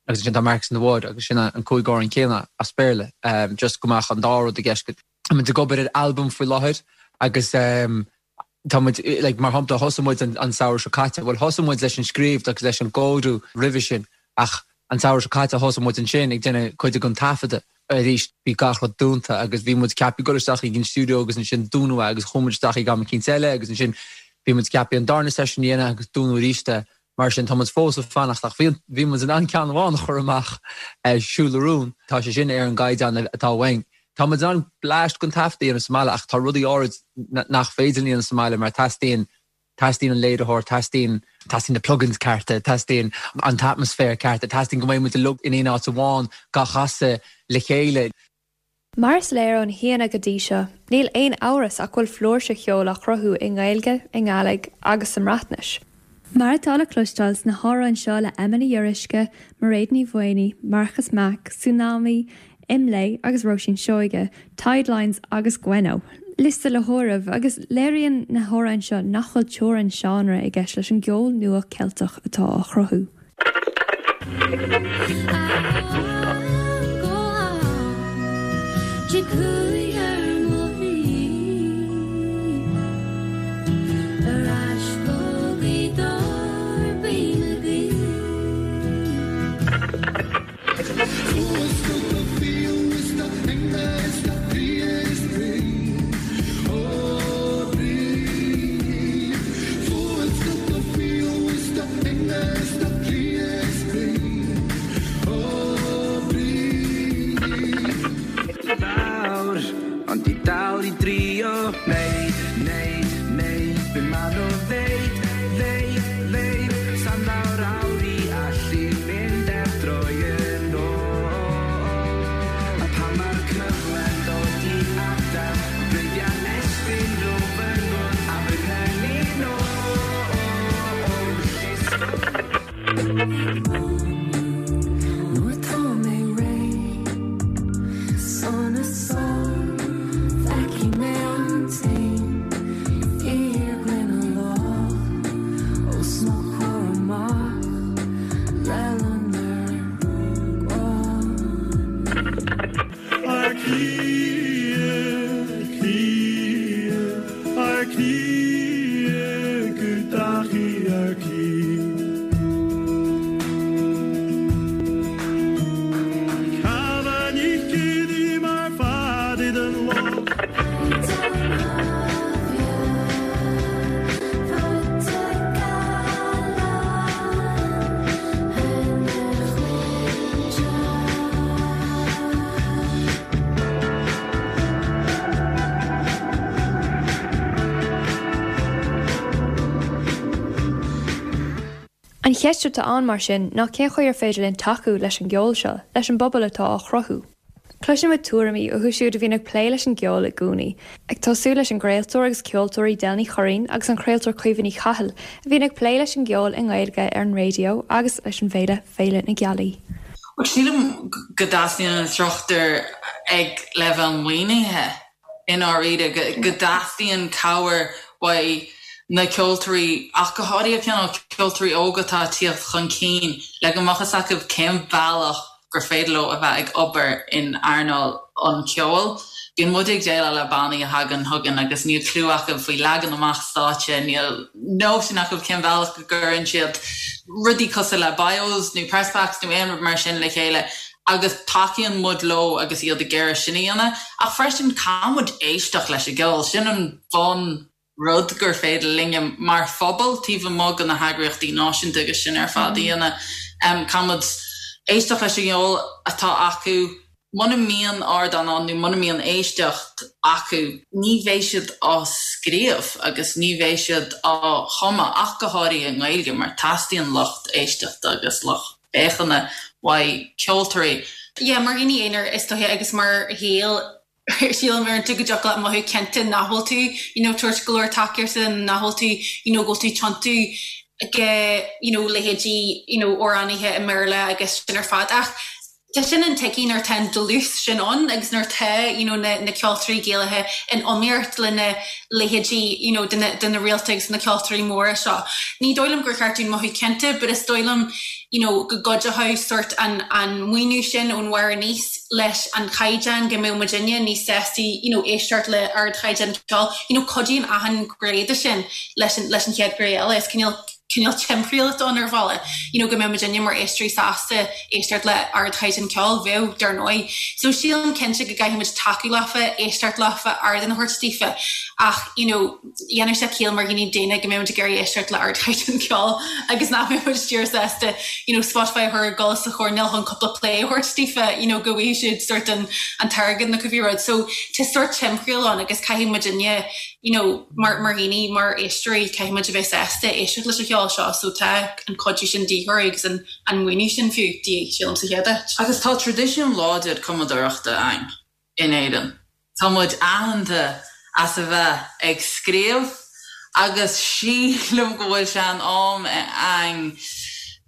agus ansin tá Marcus in the Wood agus sin an cúig amhrán céanna as Béarla. Just go mbeadh an dá rud i gceist. Tá muid ag obair ar albam faoi láthair agus tá muid, like, mar shampla thosaigh muid an samhradh seo caite, bhuel thosaigh muid leis an scríobh agus leis an gcóiriú roimhe sin ach an samhradh seo caite thosaigh muid ansin ag déanamh cuid den taifeadadh. Arís bhí gach rud dúnta agus bhí muid ceaptha dul isteach ag an stiúideo agus ansin dúnadh é agus chuaigh muid isteach ag am eicínt eile agus ansin bhí muid ceaptha an darna seisiún a dhéanamh agus dúnadh arís é. Mar sin tá muid fós ag fanacht ach bhí bhí muid in ann ceann amháin a chur amach, Siúl le Rún. Tá sé sin ar an gcaighdeán atá uainn. Tá muid in ann bleaist den taifeadadh a dhéanamh sa mbaile ach tá rudaí áirid nach féidir linn a dhéanamh sa mbaile mar teastaíonn Teastaíonn an léiritheoir, teastaíonn, teastaíonn na plugins cearta, teastaíonn an t-atmaisféar ceart, teastaíonn go mbeidh muid uilig in aon áit amháin dhá chasadh le chéile. Mar is léir ó na haíonna go dtí seo, níl aon amhras ach go bhfuil flúirse cheoil á chruthú i nGaeilge, i nGàidhlig agus sa mBreatnais. Mar atá le cloisteáil sna hamhráin seo le Emma Ní Fhíoruisce, Mairéad Ní Mhaonaigh, Marcas Mac, Súnámaí, Imlé agus Róisín Seoige, Tidelines agus Gwenno. Liosta le háireamh, agus léiríonn na hamhráin seo nach bhfuil teorainn seánra i gceist leis an gceol nua Ceilteach atá á chruthú. cheist atá ann mar sin ná cén chaoi ar féidir linn tacú leis an gceol seo, leis an bpobal atá á chruthú? Cloiseann muid tuairimí uathu siúd a bhíonn ag plé leis an gceol i gcónaí, ag tosú leis an gcraoltóir agus ceoltóirí Del Ní Churraoin agus an craoltóir Caoimhe Ní Chathail a bhíonn ag plé leis an gceol i nGaeilge ar an raidió agus leis an bhféile Féile na Gealaí. Bhuel, sílim go dteastaíonn an struchtúr ag leibhéal maoinithe. i ndáiríre, go dteastaíonn cabhair uaidh na ceoltóirí, ach go háirithe cineál ceoltóirí óga atá ag tíocht chun cinn, le go mbeadh fhios acu cén bealach gur féidir leo a bheith ag obair in earnáil an cheoil. Bíonn muid ag déileáil le bannaí a thagann chugainn agus níl cliú acu faoi leagan amach stáitse, níl nóisean acu cén bealach go gcuireann siad rudaí cosúil le bios nó press packs nó aon rud mar sin le chéile. agus tacaíonn muid leo agus iad ag iarraidh sin a dhéanamh, ach freisin caithfidh muid éisteacht leis an gceol, sin an bun rud gur féidir linne mar phobal, taobh amuigh de na heagraíochtaí náisiúnta agus sin ar fad a dhéanamh. Caithfidh muid éisteacht leis an gceol atá acu, muna mbíonn ardán ann nó muna mbíonn éisteacht acu, ní bheidh siad á scríobh agus ní bheidh siad á chumadh, ach go háirithe i nGaeilge mar teastaíonn lucht éisteachta agus lucht féachana uaidh ceoltóirí. Yeah, mar dhaoine aonair is dóiche agus mar Ghaeil sílim uaireanta go dtiocfadh leat mothú cinnte nach bhfuil tú you know tabhairt go leor tacaíochta nach bhfuil tú you know go bhfuil tú tiontú go you know leithéidí you know amhránaithe i mBéarla agus sin ar fad ach Tá sin intuigthe nuair atá an dlús sin ann agus nuair atá you know na na ceoltóirí Gaelacha in iomaíocht le na leithéidí you know de na de na réalta agus na ceoltóirí móra seo. Ní dóigh liom gur cheart dúinn mothú ciontach but is dóigh liom you know go gcuideochadh sort an an maoiniú sin ón bharr aníos leis an chaighdeán go mbeadh muidinne níos sástaí you know éisteacht le ardchaighdeán ceoil. You know cuidíonn achan ghné de sin leis an leis an chéad ghné eile. Is cineál cineál timthriall atá ann ar bhealach, you know go mbeadh muidinne mar éisteoirí sásta éisteacht le ardchaighdeán ceoil, bheadh, dar ndóigh. So sílim cinnte go gcaithfidh muid tacú leofa, éisteacht leofa, ardán a thabhairt daofa ach you know dhéanfadh sé ciall mar dhaoine daonna go mbeadh muid ag iarraidh éisteacht le ardchaighdeán ceoil agus nach mbeadh muid díreach sásta you know Spotify a chur ag dul sa choirnéal chun cúpla play a thabhairt daofa you know go bhfaighidh siad sort an an t-airgead nó cibé rud. So tá sort timthriall ann agus caithfidh muidinne you know mar mar dhaoine, mar éisteoirí, caithfidh muid a bheith sásta éisteacht leis an cheol seo so tá an cuidiú sin de dhíth orainn agus an an maoiniú sin fiú de dhíth, sílim, sa chéad áit. Agus tá traidisiún láidir cumadóireachta againn in Éirinn. Tá muid aitheanta as a bheith ag scríobh agus sílim go bhfuil sé in am againn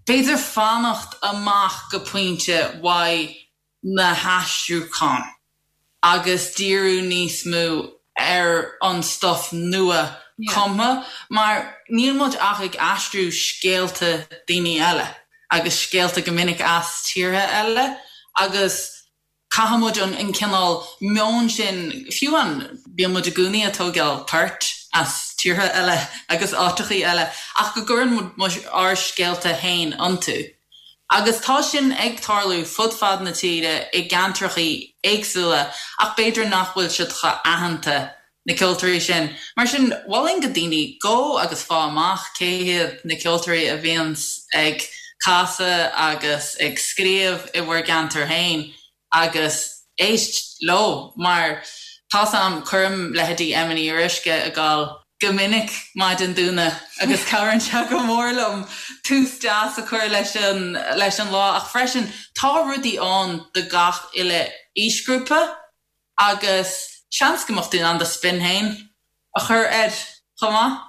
b'fhéidir fanacht amach go pointe uaidh na haistriúcháin agus díriú níos mó ar an stuif nua cumtha mar níl muid ach ag aistriú scéalta daoine eile agus scéalta go minic as tíortha eile agus caithfidh muid an cineál meon sin, fiú an, bíonn muid i gcónaí ag tógáil poirt as tíortha eile agus áiteachaí eile ach go gcuireann muid ár scéalta féin iontu. Agus tá sin ag tarlú fud fad na tíre i gceantrachaí éagsúla ach b'fhéidir nach bhfuil siad chomh aitheanta, na ceoltóirí sin. Mar sin, mholfainn go daoine gabh agus faigh amach cé hiad na ceoltóirí a bhíonns ag casadh agus ag scríobh i bhur gceantar féin agus éist leo mar tá's a'm, cuirim leithéidí Emma Ní Fhíoruisce ag gabháil go minic maidin Domhnaigh agus cabhraíonn sé go mór liom tús deas a chur leis an leis an lá ach freisin tá rudaí ann do gach uile aoisghrúpa agus seans go mbeadh tú in ann do spin féin a chur air chomh maith.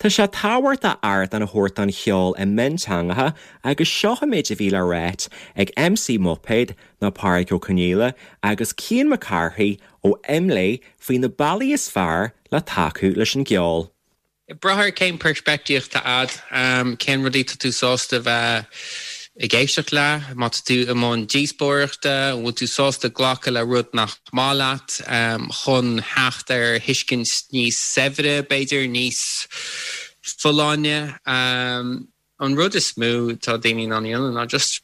Tá sé tábhachtach ardán a thabhairt don cheol i mionteangacha agus seo an méid a bhí le ráit ag MC Muipéad nó Pádraig Ó Conghaile agus Cian Mac Cárthaigh ó Imlé faoi na bealaí is fearr le tacú leis an gceol. Ag brath ar cén peirspictíocht atá a'd, cén rudaí tá tú sásta bheith ag éisteacht le, má tá tú i mbun díospóireachta, an bhfuil tú sásta glacadh le rud nach maith leat chun theacht ar thuiscint níos saibhre, b'fhéidir, níos folláine. An rud is mó atá daoine in ann a dhéanamh ná just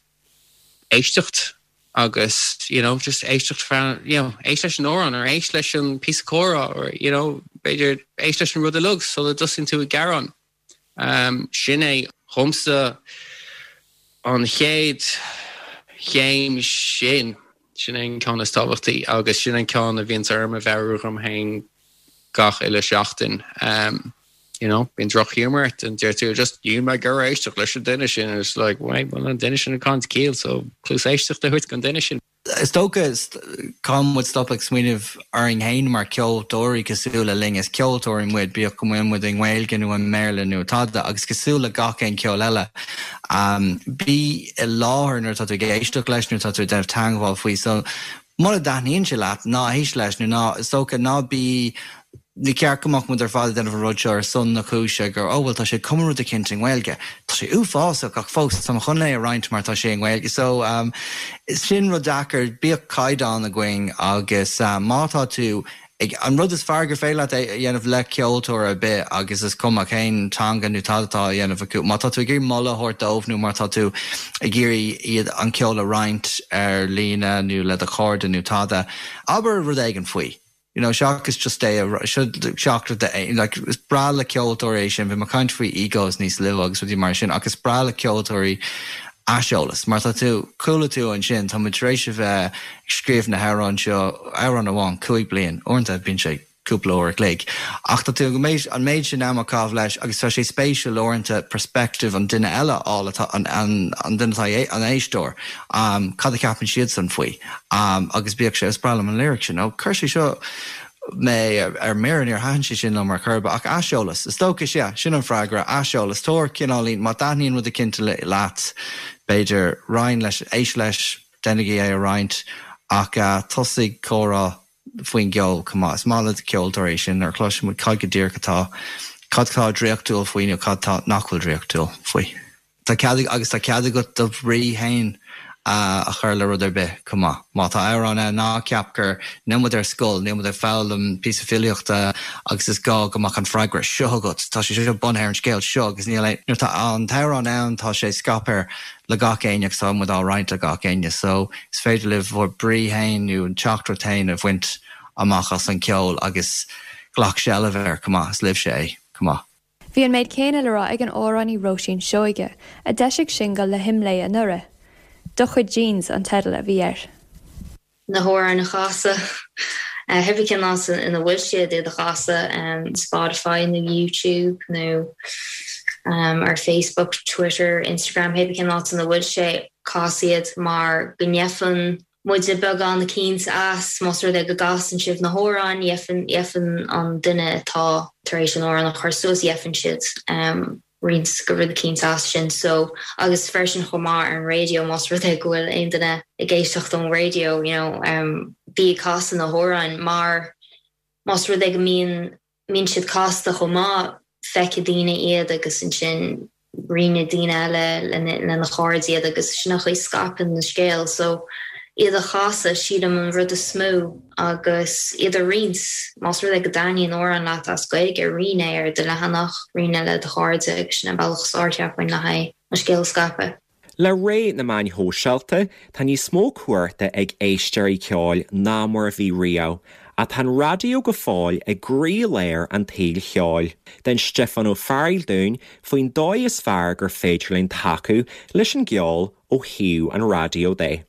éisteacht agus you know just éisteacht feadh you know éist leis an amhrán or éist leis an píosa comhrá or you know b'fhéidir éist leis an rud uilig sula dtosaíonn tú ag gearán. Sin é dhomsa an chéad chéim sin, sin é an ceann is tábhachtaí agus sin an ceann a bhíonns orm a mheabhrú dhom féin gach uile seachtain. you know, bíonn droch-ghiúmar ort and deir tú just níl mé ag iarraidh éisteacht leis an duine sin and it's like, wait, bhuel an duine sin ag caint ciall so cluas éisteachta a thabhairt don duine sin. Is dócha, caithfidh muid stop ag smaoineamh orainn féin mar ceoltóirí cosúil le linn, is ceoltóirí muid, bíodh go bhfuil muid i nGaeilge nó i mBéarla nó tada, agus cosúil le gach aon ceol eile, bí i láthair nuair atá tú ag éisteacht leis, nuair atá tú ag déanamh teangmháil faoi. So, mura dtaitníonn sé leat, ná héist leis nó ná, is dócha, ná bí Ní ceart go mbeadh muid ar fad ag déanamh an rud seo ar son na cúise gur, oh bhuel tá sé ag cumadh rud eicínt i nGaeilge. Tá sé uafásach ach fós tá mé chun é a roinnt mar tá sé i nGaeilge. So sin rud deacair, bíodh caighdeán againn agus má tá tú ag, an rud is fearr gur féidir leat a dhéanamh le ceoltóir ar bith agus is cuma cén teanga nó tada atá á dhéanamh acu, má tá tú ag iarraidh moladh a thabhairt dóibh nó má tá tú ag iarraidh iad an ceol a roinnt ar líne nó le do chairde nó tada, abair rud éigin faoi. You know, seachas just é a seachas like is breá le ceoltóirí é sin, bhí mé ag caint faoi egos níos luaithe agus rudaí mar sin ach is breá le ceoltóirí aiseolas mar tá tú, chuala tú ansin, tá muid tar éis a bheith ag scríobh na hamhráin seo, amhrán amháin, 5 bliain, uaireanta bíonn sé cúpla uair a chloig ach tá tú an méid sin ama ag caitheamh leis agus tá sé spéisiúil uaireanta perspective an duine eile a fháil atá an an duine atá an éisteoir cad a cheapann siadsan faoi. Agus bíodh sé, is breá liom an lyric sin, ó chuir sé seo mé ar mire, níor thaitin sé sin liom ar chor ar bith, ach aiseolas, is dócha, sea, sin an freagra, aiseolas, tabhair cineáilín, má taitníonn rud eicínt leat, b'fhéidir, roinn leis, éist leis, déanaigí é a roinnt, ach tosaigh comhrá faoin gceol chomh maith. Is maith le ceoltóirí é sin, nuair a chloiseann muid cad go díreach atá, cad atá draíochtúil faoi nó cad atá nach bhfuil draíochtúil faoi. Tá cead agus tá cead agat do bhrí féin a chur le rud ar bith chomh maith. Má tá amhrán ann, ná ceap gur, níl muid ar scoil, níl muid ag foghlaim píosa filíochta agus is gá go mbeadh an freagra seo agat, tá sé seo bunaithe ar an scéal seo agus níl aon, nuair atá an t-amhrán ann tá sé scaipthe le gach éinne agus tá muid á roinnt le gach éinne so is féidir libh bhur brí féin nó an teachtaireacht féin a bhaint amach as an ceol agus glac seilbh air chomh maith, is libhse é chomh maith. Bhí an méid céanna le rá ag an amhránaí Róisín Seoige, a d'eisigh singil le hImlé anuraidh. Do chuid Jeans an teideal a bhí air. Na hamhráin a chasadh, cibé cén áit ina bhfuil siad, iad a chasadh, Spotify nó YouTube nó ar Facebook, Twitter, Instagram, cibé cén áit ina bhfuil sé, cas iad mar go ngeibheann muide beagán eicínt as, más rud é go gcasann sibh na hamhráin, gheibheann, gheibheann an duine atá tar éis an amhrán a chur suas, gheibheann siad roinnt go rud eicínt as sin. So, agus freisin chomh maith ar an raidió, más rud é go bhfuil aon duine ag éisteacht ón raidió, you know, bí ag casadh na hamhráin mar más rud é go mbíonn mbíonn siad casta chomh maith, feicfidh daoine iad agus ansin roinnfidh daoine eile lena chairde iad agus sin an chaoi scaipeann an scéal. So iad a chasadh, sílim, an rud is mó agus iad a roinnt, más rud é go dtaitníonn amhrán leat as Gaeilge, roinn é ar do leathanach, roinn é le do chairde agus sin an bealach is fearr cheapfainn le haghaidh an scéal a scaipeadh. Le ré na meáin shóisialta, tá níos mó cumhachta ag éisteoirí ceoil ná mar a bhí riamh, ach tá an raidió go fóill i gcroílár an tsaoil cheoil. D'inis Stiofán Ó Fearghaíl dúinn faoin dóigh is fearr gur féidir linn tacú leis an gceol ó thaobh an raidió de.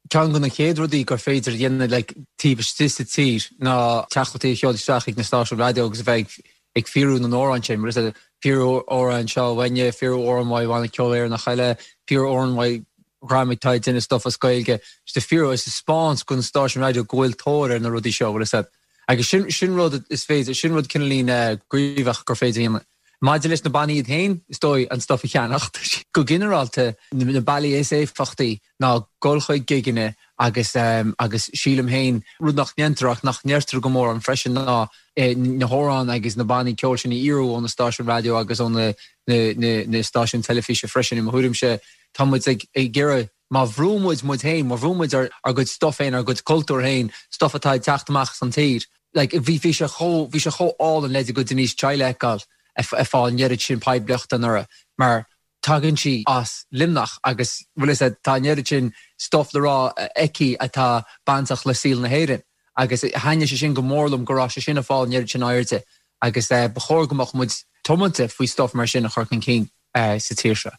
Ceann de na chéad rudaí gur féidir a dhéanamh like taobh istigh sa tír ná teachtaireachtaí a sheoladh isteach chuig na stáisiúin raidió agus a bheith ag fíorú na n-amhrán sin, mar is fíorú amhrán seo uainne, fíorú amhrán uaidh Bhanna Ceoil Éireannach eile, fíorú amhrán uaidh dhream atá ag déanamh stuff as Gaeilge, just a fíorú is a 'speáint do na stáisiúin raidió go bhfuil tóir ar na rudaí seo, bhfuil a fhios agat. Agus sin sin rud is féidir, sin rud cineáilín gníomhach gur féidir a dhéanamh. Maidir leis na bannaí iad féin, is dóigh, an stuff a cheannacht. Go ginearálta, na bealaí is éifeachtaí ná dul chuig gigeanna agus agus sílim féin, rud nach ndéantar ach nach ndeirtear go mórán freisin ná na hamhráin agus na bannaí ceoil sin a fhíorú ó na stáisiúin raidió agus ó na na stáisiúin teilifíse freisin. I mo thuairimse, tá muid ag iarraidh, má bhrú muid muid féin, má bhrú muid ár gcuid stuff féin, ár gcuid cultúr féin, stuff atá ag teacht amach as an tír, Like, bhí, bhí sé chomh, bhí sé chomh álainn leid a gcuid Denise Chaila a fheiceáil ag fáil an oiread sin poiblíochta anuraidh mar tagann sí as Luimneach agus, bhfuil fhios a'd, tá an oiread sin stuff le rá aici atá bainteach le saol na hÉireann agus thaitnigh sé sin go mór liom go raibh sé sin ag fáil an oiread sin airde agus ba chóir go mbeadh muid tiomanta faoi stuff mar sin a chur chun cinn sa tír seo.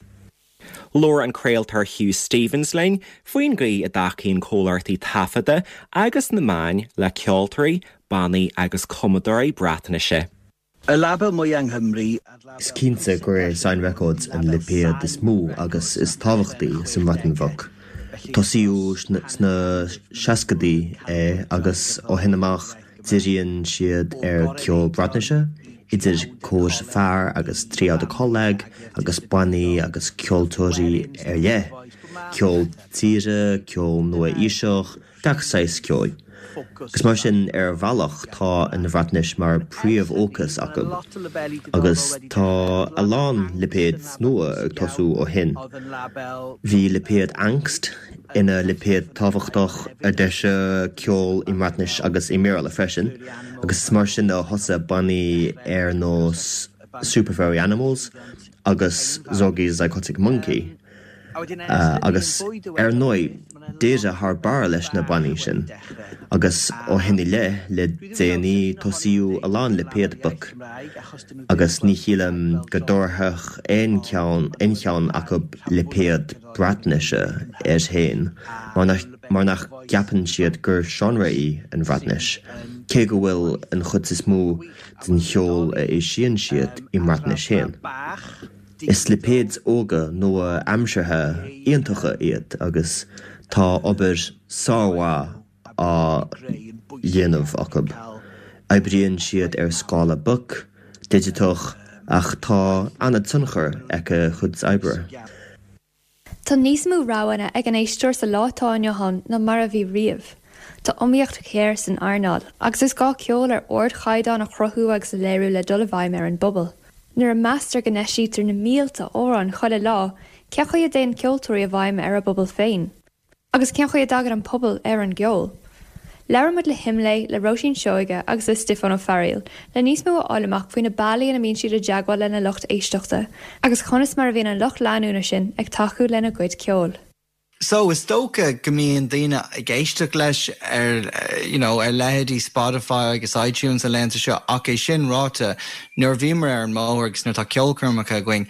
Labhair an craoltóir Hugh Stevens linn faoin gcaoi a dtacaíonn comhlachtaí taifeadta agus na meáin le ceoltóirí, bannaí agus cumadóirí Breatnaise. Y label mwya yng Nghymru Is cinnte gur é Sain Records an lipéad is mó agus is tábhachtaí sa mBreatain Bheag. Tosaíodh sna seascaidí é agus ó shin amach díríonn siad ar ceol Breatnaise, idir cór fear agus triawd y coleg agus bannaí agus ceoltóirí ar leith, ceol tíre, ceol nua-aoiseach, gach saghas ceoil. Agus mar sin, ar bhealach, tá an Bhreatnais mar príomhfhócas acu. Agus tá a lán lipéad nua ag tosú ó shin. Bhí lipéad Ankst ina lipéad tábhachtach a d'eisigh ceol i mBreatnais agus i mBéarla freisin, agus is mar sin a thosaigh bannaí ar nós Super Furry Animals agus Zorky Zygotic Mynci. Agus ar ndóigh, d'éirigh thar barr leis na bannaí sin, agus ó shin i leith, le déanaí, tosaíodh a lán lipéad beag, agus ní shílim go dtabharfadh aon cheann aon cheann acu lipéad Breatnaise air féin, mar nach gceapann siad gur seánra í an Bhreatnais, cé go bhfuil an chuid is mó den cheol a eisíonn siad i mBreatnais féin. Is lipéid óga nua-aimseartha iontacha iad agus tá obair sármhaith á dhéanamh acu. Oibríonn siad ar scála beag, digiteach, ach tá an-tionchar ag a gcuid oibre. Tá níos mó roghanna ag an éisteoir sa lá atá inniu ann ná mar a bhí riamh. Tá iomaíocht ghéar san earnáil, agus is gá ceol ar ardchaighdeán a chruthú agus a léiriú le dul i bhfeidhm ar an bpobal. Nuair a meastar go n-eisítear na mílte amhrán chuile lá, cén chaoi a dtéann ceoltóirí i bhfeidhm ar a bpobal féin? Agus cén chaoi a dtagann an pobal ar an gceol? Labhair muid le hImlé, le Róisín Seoige agus le Stiofán Ó Fearghaíl le níos mó a fháil amach faoi na bealaí ina mbíonn siad i dteagmháil lena lucht éisteachta agus conas mar a bhíonn an lucht leanúna sin ag tacú lena gcuid ceoil. So, is dócha go mbíonn daoine ag éisteacht leis ar, you know, ar leithéidí Spotify agus iTunes na laethanta seo ach é sin ráite, nuair a bhíomar ar an mbóthar agus nuair atá ceolchoirmeacha againn,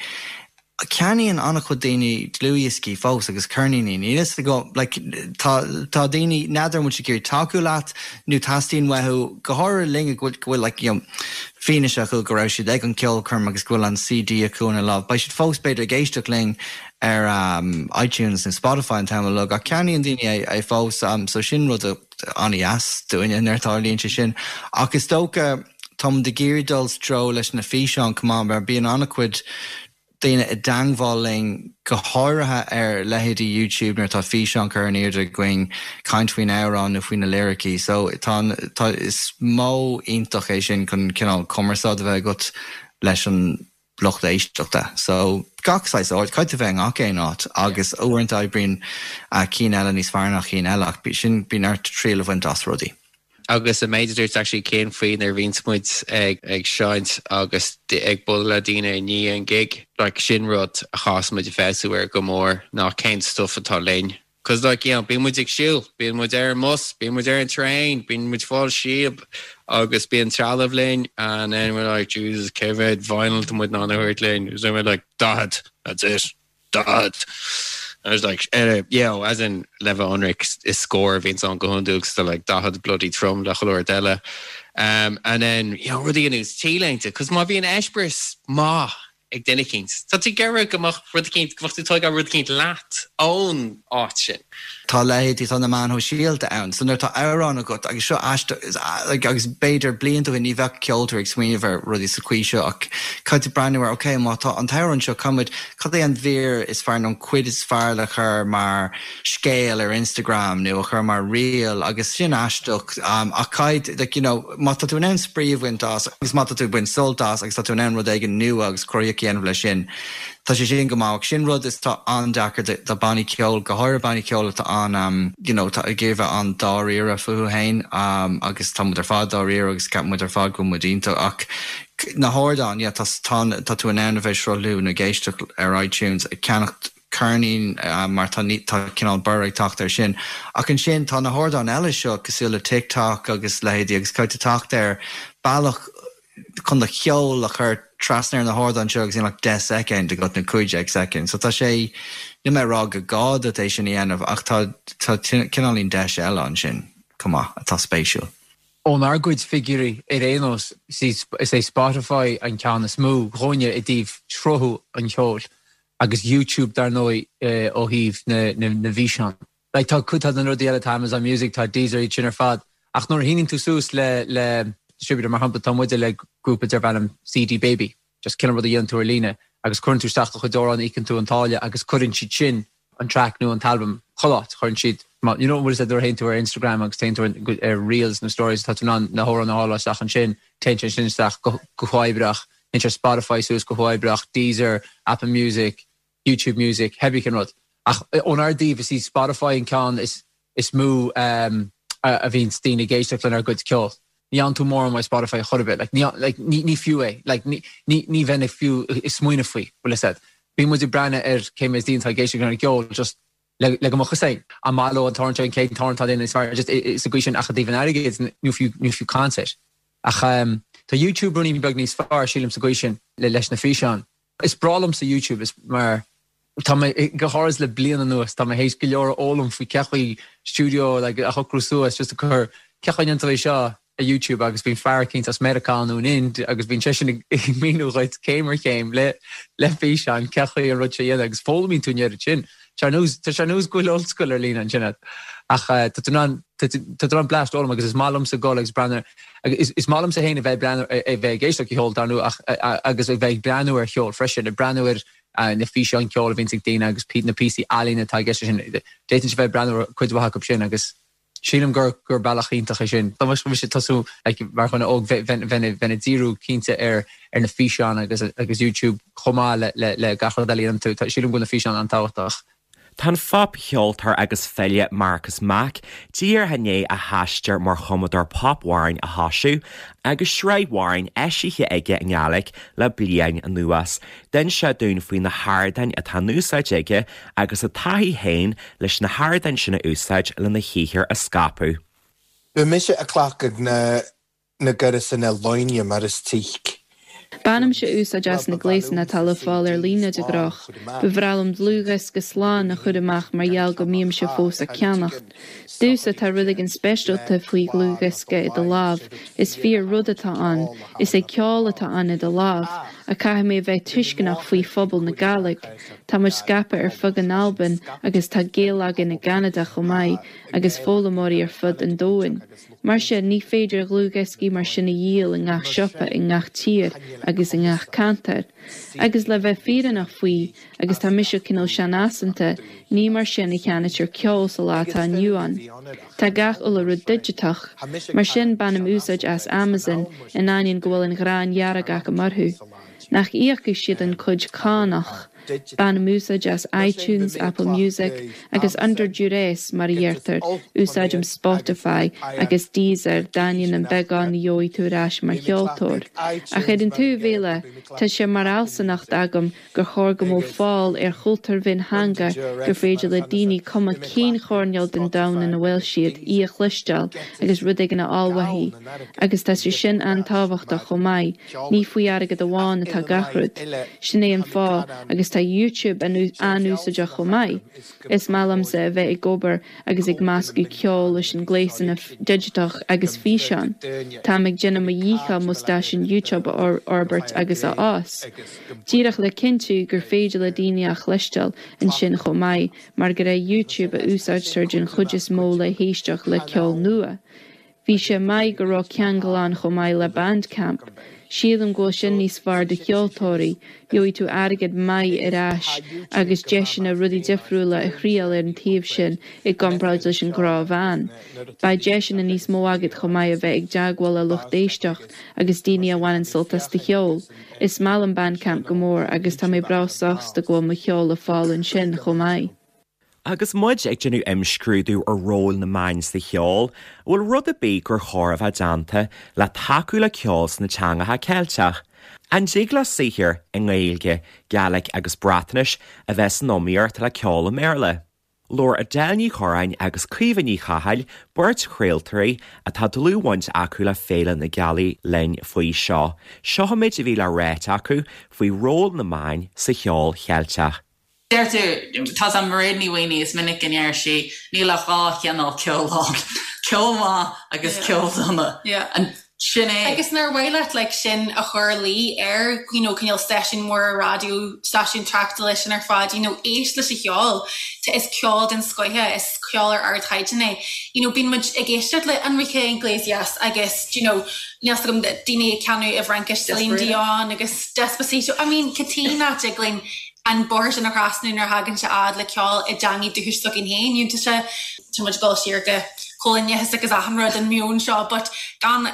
ceannaíonn an-chuid daoine dlúthdhioscaí fós agus ceirníní. Níl fhios agam, like, tá, tá daoine, n'fheadar an bhfuil siad ag iarraidh tacú leat nó teastaíonn uathu, go háirithe linn go bhfuil, go bhfuil like, you know, fianaise acu go raibh siad ag an gceolchoirm agus go bhfuil an CD acu ina lámh. Beidh siad fós b'fhéidir ag éisteacht linn ar iTunes nó Spotify an t-am uilig ach ceannaíonn daoine é fós so sin rud an-dheas dúinne nuair a tharlaíonn sé sin. Ach is dócha tá muid ag iarraidh dul sa treo leis na físeáin chomh maith mar bíonn an-chuid daoine i dteangmháil linn go háirithe ar leithéidí YouTube nuair atá físeán curtha in airde againn caint faoin amhrán nó faoi na liricí so tá tá is modh iontach é sin chun cineál cumarsáid a bheith agat leis an lucht éisteachta. So, gach saghas áit, caithfidh tú bheith i ngach aon áit agus uaireanta oibríonn cinn eile níos fearr ná cinn eile ach sin, bíonn ort triail a bhaint as rudaí. Agus an méid a dúirt actually Cian faoi nuair a bhíonns muid ag ag seinnt agus ag bualadh le daoine i ndiaidh an gig, like sin rud a chaithfeas muid a feabhsú air go mór ná cén stuff atá linn. Cos like, you know, bíonn muid ag siúl, bíonn muid ar an mbus, bíonn muid ar an traein, bíonn muid ag fáil síob agus bíonn trealamh linn and then we're like, Jesus, cé mhéad vinyl tá muid in ann a thabhairt linn? And then we're like, 40, that's it, 40. I was like, eh, you know, as in, le bheith ionraic, is scór a bhíonns ann go hiondúil 'cause they're like 40 bloody trom le chuile rud eile. Um, and then, you know, rudaí ar nós T-léinte, 'cause má bhíonn eispéireas maith ag duine eicínt. Tá tú ag iarraidh go mbeadh rud eicínt, go mbeadh tú ag tógáil rud eicínt leat ón áit sin. Tá leithéidí, tá na meáin shóisialta ann, so nuair atá amhrán agat, agus seo aisteach, like, agus b'fhéidir blianta ó shin ní bheadh ceoltóir ag smaoineamh ar rudaí sa chaoi seo ach caithfidh tú breathnú ar, ok, má tá an t-amhrán seo, caithfidh muid, cad é an mhír is fearr nó an cuid is fearr le cur mar scéal ar Instagram nó a chur mar reel agus sin aisteach ach caithfidh, like, you know, má tá tú in ann spraoi a bhaint as agus má tá tú ag baint sult as agus tá tú in ann rud éigin nua agus cruthaíoch a dhéanamh leis sin, tá sé sin go maith. Ach sin rud is tá an-deacair do, do bannaí ceoil, go háirithe bannaí ceoil atá an, you know, atá ag iarraidh bheith an-dáiríre fúthu féin agus tá muid ar fad dáiríre agus ceapann muid ar fad go bhfuil muid iontach ach na hardáin, yeah, tá, tá, tá tú in ann a bheith ag sruthlú nó ag éisteacht ar iTunes, ag ceannacht ceirnín mar tá tá cineál borradh ag teacht air sin. Ach ansin tá na hardáin eile seo cosúil le TikTok agus leithéidí agus caithfidh tú teacht ar bealach chun do cheol a chur trasna ar na hardáin seo agus níl ach 10 soicind agat nó 15 soicind. So tá sé, níl mé ag rá go gá duit é sin a dhéanamh ach tá tá cineáilín deis eile ansin chomh maith atá spéisiúil. Ónár gcuid figiúirí ar aon nós, is é Spotify an ceann is mó dhúinne i dtaobh sruthú an cheoil agus YouTube dar ndóigh ó thaobh na bhfíseán. Like tá cuid de na rudaí eile, tá Amazon Music, tá Deezer, iad sin ar fad ach nuair a shíníonn tú suas le le distributor, mar shampla tá muide le grúpa darb ainm CD Baby, just cineál rud a dhéanann tú ar líne agus cuireann tú isteach do chuid amhrán, íocann tú an táille agus cuireann siad sin an track nó an t-albam chuile áit, cuireann siad, you know, bhfuil a fhios agat nuair a théann tú ar Instagram agus téann tú ar Reels nó Stories tá tú in ann na hamhráin a fháil isteach ansin, téann sé sin isteach go huathoibríoch, téann sé Spotify suas go huathoibríoch, Deezer, Apple Music, YouTube Music, cibé cén rud. Ach ónár dtaobh is í Spotify an ceann is is mó a bhíonns daoine ag éisteacht lenár gcuid ceoil. Ní fhaigheann tú mórán uaidh Spotify chor ar bith. Like, ní, like, ní, ní fiú é. Like, ní, ní, ní bheinn ag fiú ag smaoineamh faoi, bhfuil a fhios agat. Bíonn muid ag breathnú ar cé méid daoine atá ag éisteacht lenár gceol just le, le go mbeadh fhios againn an maith leo an t-amhrán seo, an chéad t-amhrán atá déanta níos fearr, just sa gcaoi sin ach i dtaobh an airgid, ní fiú, ní fiú caint air. Ach tá YouTube ruainnín beag níos fearr, sílim, sa gcaoi sin, le, leis na físeáin. Is breá liomsa YouTube is mar tá mé, go háirid le bliain anuas, tá mé théis go leor a fhoghlaim faoi cén chaoi stiúideo like a shocrú suas just a cur cén chaoi a ndéantar é seo ar YouTube agus bíonn fear eicínt as Meiriceá nó an Ind agus bíonn seisean ag míniú dhuit céim ar chéim le le físeán cén chaoi an rud seo a dhéanamh agus foghlaimíonn tú an oiread sin. Tá sé ar nós tá sé ar nós go bhfuil ollscoil ar líne ansin agat ach tá tú in ann tá tú in ann bleaist a fhoghlaim agus is maith liomsa dul agus breathnú Agus is maith liomsa féin a bheith ag breathnú, a bheith ag éisteacht le ceol, dar ndóigh, ach agus a bheith ag breathnú ar cheol freisin, ag breathnú ar na físeáin ceoil a bhíonns ag daoine agus na píosaí ealaíne atá i gceist leis sin. D'fhéadfainnse a bheith ag breathnú ar cuid mhaith acu sin agus sílim gur gur bealach iontach é sin. Dá mbeadh mise ag tosú like mar dhuine óg bheinn bheinn ag díriú cinnte ar ar na físeáin agus agus YouTube chomh maith le le le gach rud eile a dhéanann tú. Sílim go bhfuil na físeáin an-tábhachtach. Tá an phopcheoltóir agus file Marcus Mack díreach i ndiaidh a haistear mar chumadóir popamhrán a thosú agus sraith amhrán eisithe aige i nGaeilge le bliain anuas. D'inis sé dúinn faoi na hardáin atá in úsáid aige agus a taithí féin leis na hardáin sin a úsáid lena shaothar a scaipeadh. Bha mise a' clacadh na na gaireasanna loinge mar is tuigc. Bainimse úsáid as na gléasanna atá le fáil ar líne de ghnách. Ba bhreá liom dlúthdhiosca slán a chur amach mar gheall go mbímse fós ag ceannacht. Domhsa, tá rud éigin speisialta faoi dhlúthdhiosca i do lámh, is fíor rud atá ann, is é ceol atá ann i do lámh. Ach caithfidh mé a bheith tuisceanach faoi phobal na Gàidhlig. Tá muid scaipthe ar fud na Alban agus tá Gaeil againn i gCeanada chomh maith agus foghlaimeoirí ar fud an domhain. Mar sin, ní féidir dlúthdhioscaí mar sin a dhíol i ngach siopa i ngach tír agus i ngach ceantar. Agus le bheith fírinneach faoi, agus tá mise cineál seanfhaiseanta, ní mar sin a cheannaítear ceol sa lá atá inniu ann. Tá gach uile rud digiteach. Mar sin, bainim úsáid as Amazon, in ainneoin go bhfuil an ghráin dhearg acu orthu. Nach íocfaidh siad an cuid cánach. Bainim úsáid as iTunes, Apple Music, agus under duress, mar a dheirtear, úsáidim Spotify agus Deezer d'ainneoin an beagán a gheobhaidh tú ar ais mar cheoltóir. Ach ar an taobh eile, tá sé mar fhealsúnacht agam gur chóir go mbeadh fáil ar chultúr mhiontheanga gur féidir le daoine cuma cén choirnéal den domhan ina bhfuil siad, í a chloisteáil agus rud éigin a fháil uaithi. Agus tá sé sin an-tábhachtach chomh maith. Ní faoi airgead amháin atá gach rud. Sin é an fáth, agus tá YouTube an-úsáideach chomh maith. Is maith liomsa a bheith ag obair agus ag meascadh ceol leis an gléasanna digiteach agus físeáin. Táim ag déanamh mo dhícheall mo stáisiún YouTube a fhorbairt agus a fhás. Díreach le cinntiú gur féidir le daoine a chloisteáil ansin chomh maith, mar gur ar YouTube a úsáidtear den chuid is mó le héisteacht le ceol nua. Bhí sé maith go raibh ceangal ann chomh maith le Bandcamp. Sílim go bhfuil sin níos fearr do cheoltóirí, gheobhaidh tú airgead maith ar ais agus deiseanna rudaí difriúla a thriail ar an taobh sin i gcomparáid leis an ghnáthmheán. Beidh deiseanna níos mó agat chomh maith a bheith ag teagmháil le lucht éisteacht agus daoine a bhaineann sult as do cheol. Is maith liom Bandcamp go mór agus tá mé breá sásta go bhfuil mo cheol le fáil ansin chomh maith. Agus muid ag déanamh imscrúdú ar ról na meáin sa cheol, an bhfuil rud ar bith gur chóir a bheith déanta le tacú le ceol sna teangacha Ceilteach? An dtig le saothar i nGaeilge, Gaelic agus Breatnais a bheith san iomaíocht le ceol i mBéarla? Labhair Edel Ní Chorráin agus Caoimhe Ní Chathail, beirt chraoltóirí atá dlúthbhaint acu le Féile na Gealaí linn faoi seo. Seo an méid a bhí le ráit acu faoi ról na meáin sa cheol Cheilteach. Deirtear, tá a fhios a'm Mairéad Ní Mhaonaigh, is minic go ndeir sí, níl ach 2 chineál ceoil ann, ceol maith agus ceol dona. And sin é. Agus nár mhaith leat like sin a chur i luí ar you know cineál stáisiún mór raidió, stáisiún tráchtála sin ar fad, you know éist leis an cheol, tá is ceol den scoith é, is ceol ar ardchaighdeán é. You know bíonn muid ag éisteacht le Enrique Iglesias agus you know níl 's agam daoine ag canadh i bhFraincis Celine Dion agus Despacito, I mean cad chuige nach dtig linn an bóthar sin a thrasnú nuair a thagann sé fhad le ceol i dteangaidh dúchais s'againn féin. You know, tá sé, tá muid ag dul siar go coilíneachas agus achan rud, an meon seo, but gan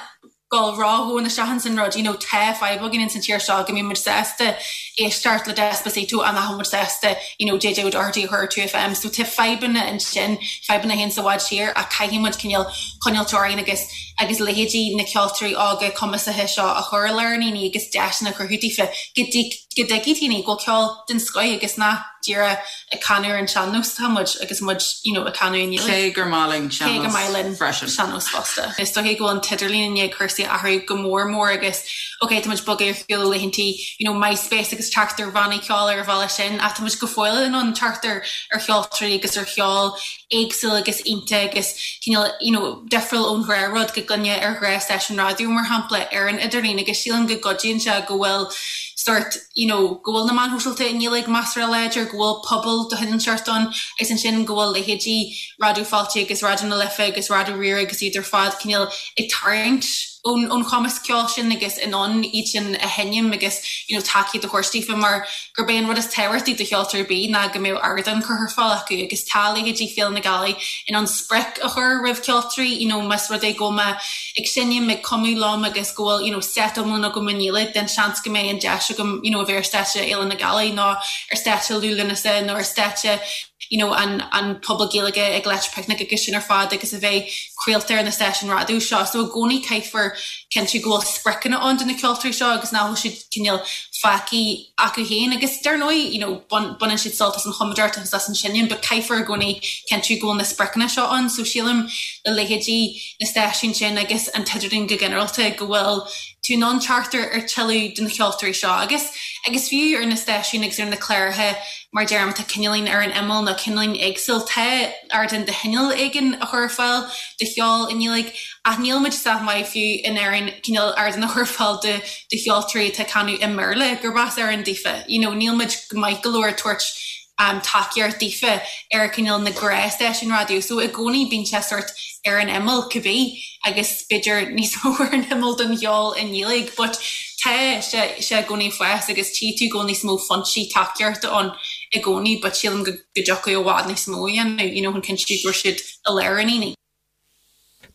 dul ródhomhain isteach ins an rud, you know, tá fadhb againn ins an tír seo go mbíonn muid sásta éisteacht le Despacito ach nach bhfuil muid sásta, you know, JJ O'Doherty a chur ar 2FM. So tá fadhbanna ansin, fadhbanna a théann i bhfad siar ach caithfidh muid cineál coinneáilt orainn agus agus leithéidí na ceoltóirí óga cumasaithe seo a chur i lár an aonaigh agus deiseanna a chruthú daofa go dtig go dtuigfidh daoine go bhfuil ceol den scoith agus nach díreach ag canadh ar an sean-nós atá muid agus muid you know ag canadh i nGaeilge. Cé gur maith linn Cé gur maith linn freisin. sean-nós fosta. Is dóiche go bhfuil an t-idirlíon i ndiaidh cúrsaí a athrú go mór mór agus ok tá muid bogtha ar shiúl ó laethantaí you know MySpace agus teacht ar bhannaí ceoil ar an bhealach sin ach tá muid go fóill in ann teacht ar ar cheoltóirí agus ar cheol éagsúil agus iontach agus cineál you know difriúil ón ghnáthrud go gcluinfeá ar ghnáthstáisiún raidió mar shampla ar an idirlíon agus sílim go gcuidíonn sé go bhfuil sórt you know go bhfuil na meáin shóisialta i nGaeilge measartha láidir, go bhfuil pobal de chineál seort ann agus ansin go bhfuil leithéidí Raidió Fáilte agus Raidió na Life agus Raidió Rí-Rá agus iad ar fad cineál ag tarraingt ón ón chumasc ceoil sin agus in ann iad sin a sheinm agus you know tacaíocht a thabhairt daofa mar gurb é an rud is tábhachtaí do cheoltóir ar bith ná go mbeadh ardán curtha ar fáil acu agus tá leithéidí Féile na Gealaí in ann sprioc a chur roimh cheoltóirí you know más rud é go bhfuil mé ag seinm, ag cumadh liom agus go bhfuil you know set iomlán agam i nGaeilge then seans go mbeidh an deis agam you know a bheith ar stáitse Fhéile na Gealaí nó ar stáitse Liú Lúnasa nó ar stáitse you know an an Puball Gaeilge ag Electric Picnic agus sin ar fad agus a bheith craolta ar na stáisiúin raidió seo. So i gcónaí caithfear cinntiú go bhfuil spriocanna ann do na ceoltóirí seo agus nach bhfuil siad cineál fágtha acu féin agus dar ndóigh you know baineann siad sult as an chumadóireacht agus as an seinm but caithfear i gcónaí cinntiú go bhfuil na spriocanna seo ann so sílim le leithéidí na stáisiún sin agus an t-idirlíon go ginearálta go bhfuil tú in ann teacht ar ar tuilleadh de na ceoltóirí seo agus agus fiú ar na stáisiúin agus ar na cláracha mar deirim atá cineáilín ar an imeall nó cineáilín éagsúil tá ardán de chineál éigin a chur ar fáil do cheol i nGaeilge ach níl muid sách maith fiú in Éirinn cineál ardán a chur ar fáil do do cheoltóirí atá ag canadh i mBéarla gurb as Éirinn daofa you know níl muid maith go leor ag tabhairt um tacaíocht daofa ar cineál na gnáthstáisiúin raidió so i gcónaí bíonn sé sort ar an imeall cibé agus b'fhéidir níos mó ar an imeall don cheol i nGaeilge but tá sé sé i gcónaí ag fás agus tchí tú go bhfuil níos mó foinsí tacaíochta ann i gcónaí but sílim go go dtiocfadh i bhfad níos mó a dhéanamh you know chun cinntiú go raibh siad i lár an aonaigh.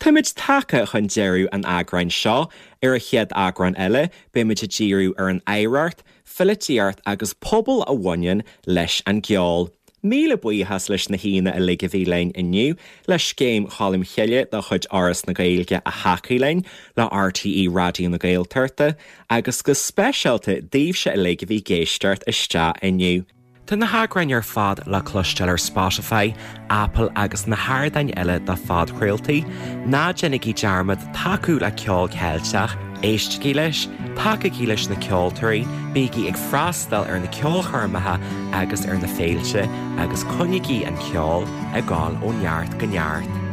Táimid tagtha chun deireadh an eagráin seo. Ar an chéad eagrán eile, beimid ag díriú ar an oidhreacht, pholaitíocht agus pobal a bhaineann leis an gceol. Míle buíochas leis na haíonna uilig a bhí linn inniu, le Scéim Cholm Chille de chuid Fhoras na Gaeilge a thacaigh linn, le RTÉ Raidió na Gaeltachta, agus go speisialta daoibhse uilig a bhí ag éisteacht isteach inniu. Tá na heagráin ar fad le cloisteáil ar Spotify, Apple agus na hardáin eile do phodchraoltaí. Ná déanaigí dearmad tacú le ceol Ceilteach, éistigí leis, tacaígí leis na ceoltóirí, bígí ag freastal ar na ceolchoirmeacha agus ar na féilte agus coinnígí an ceol ag gabháil ó neart go neart.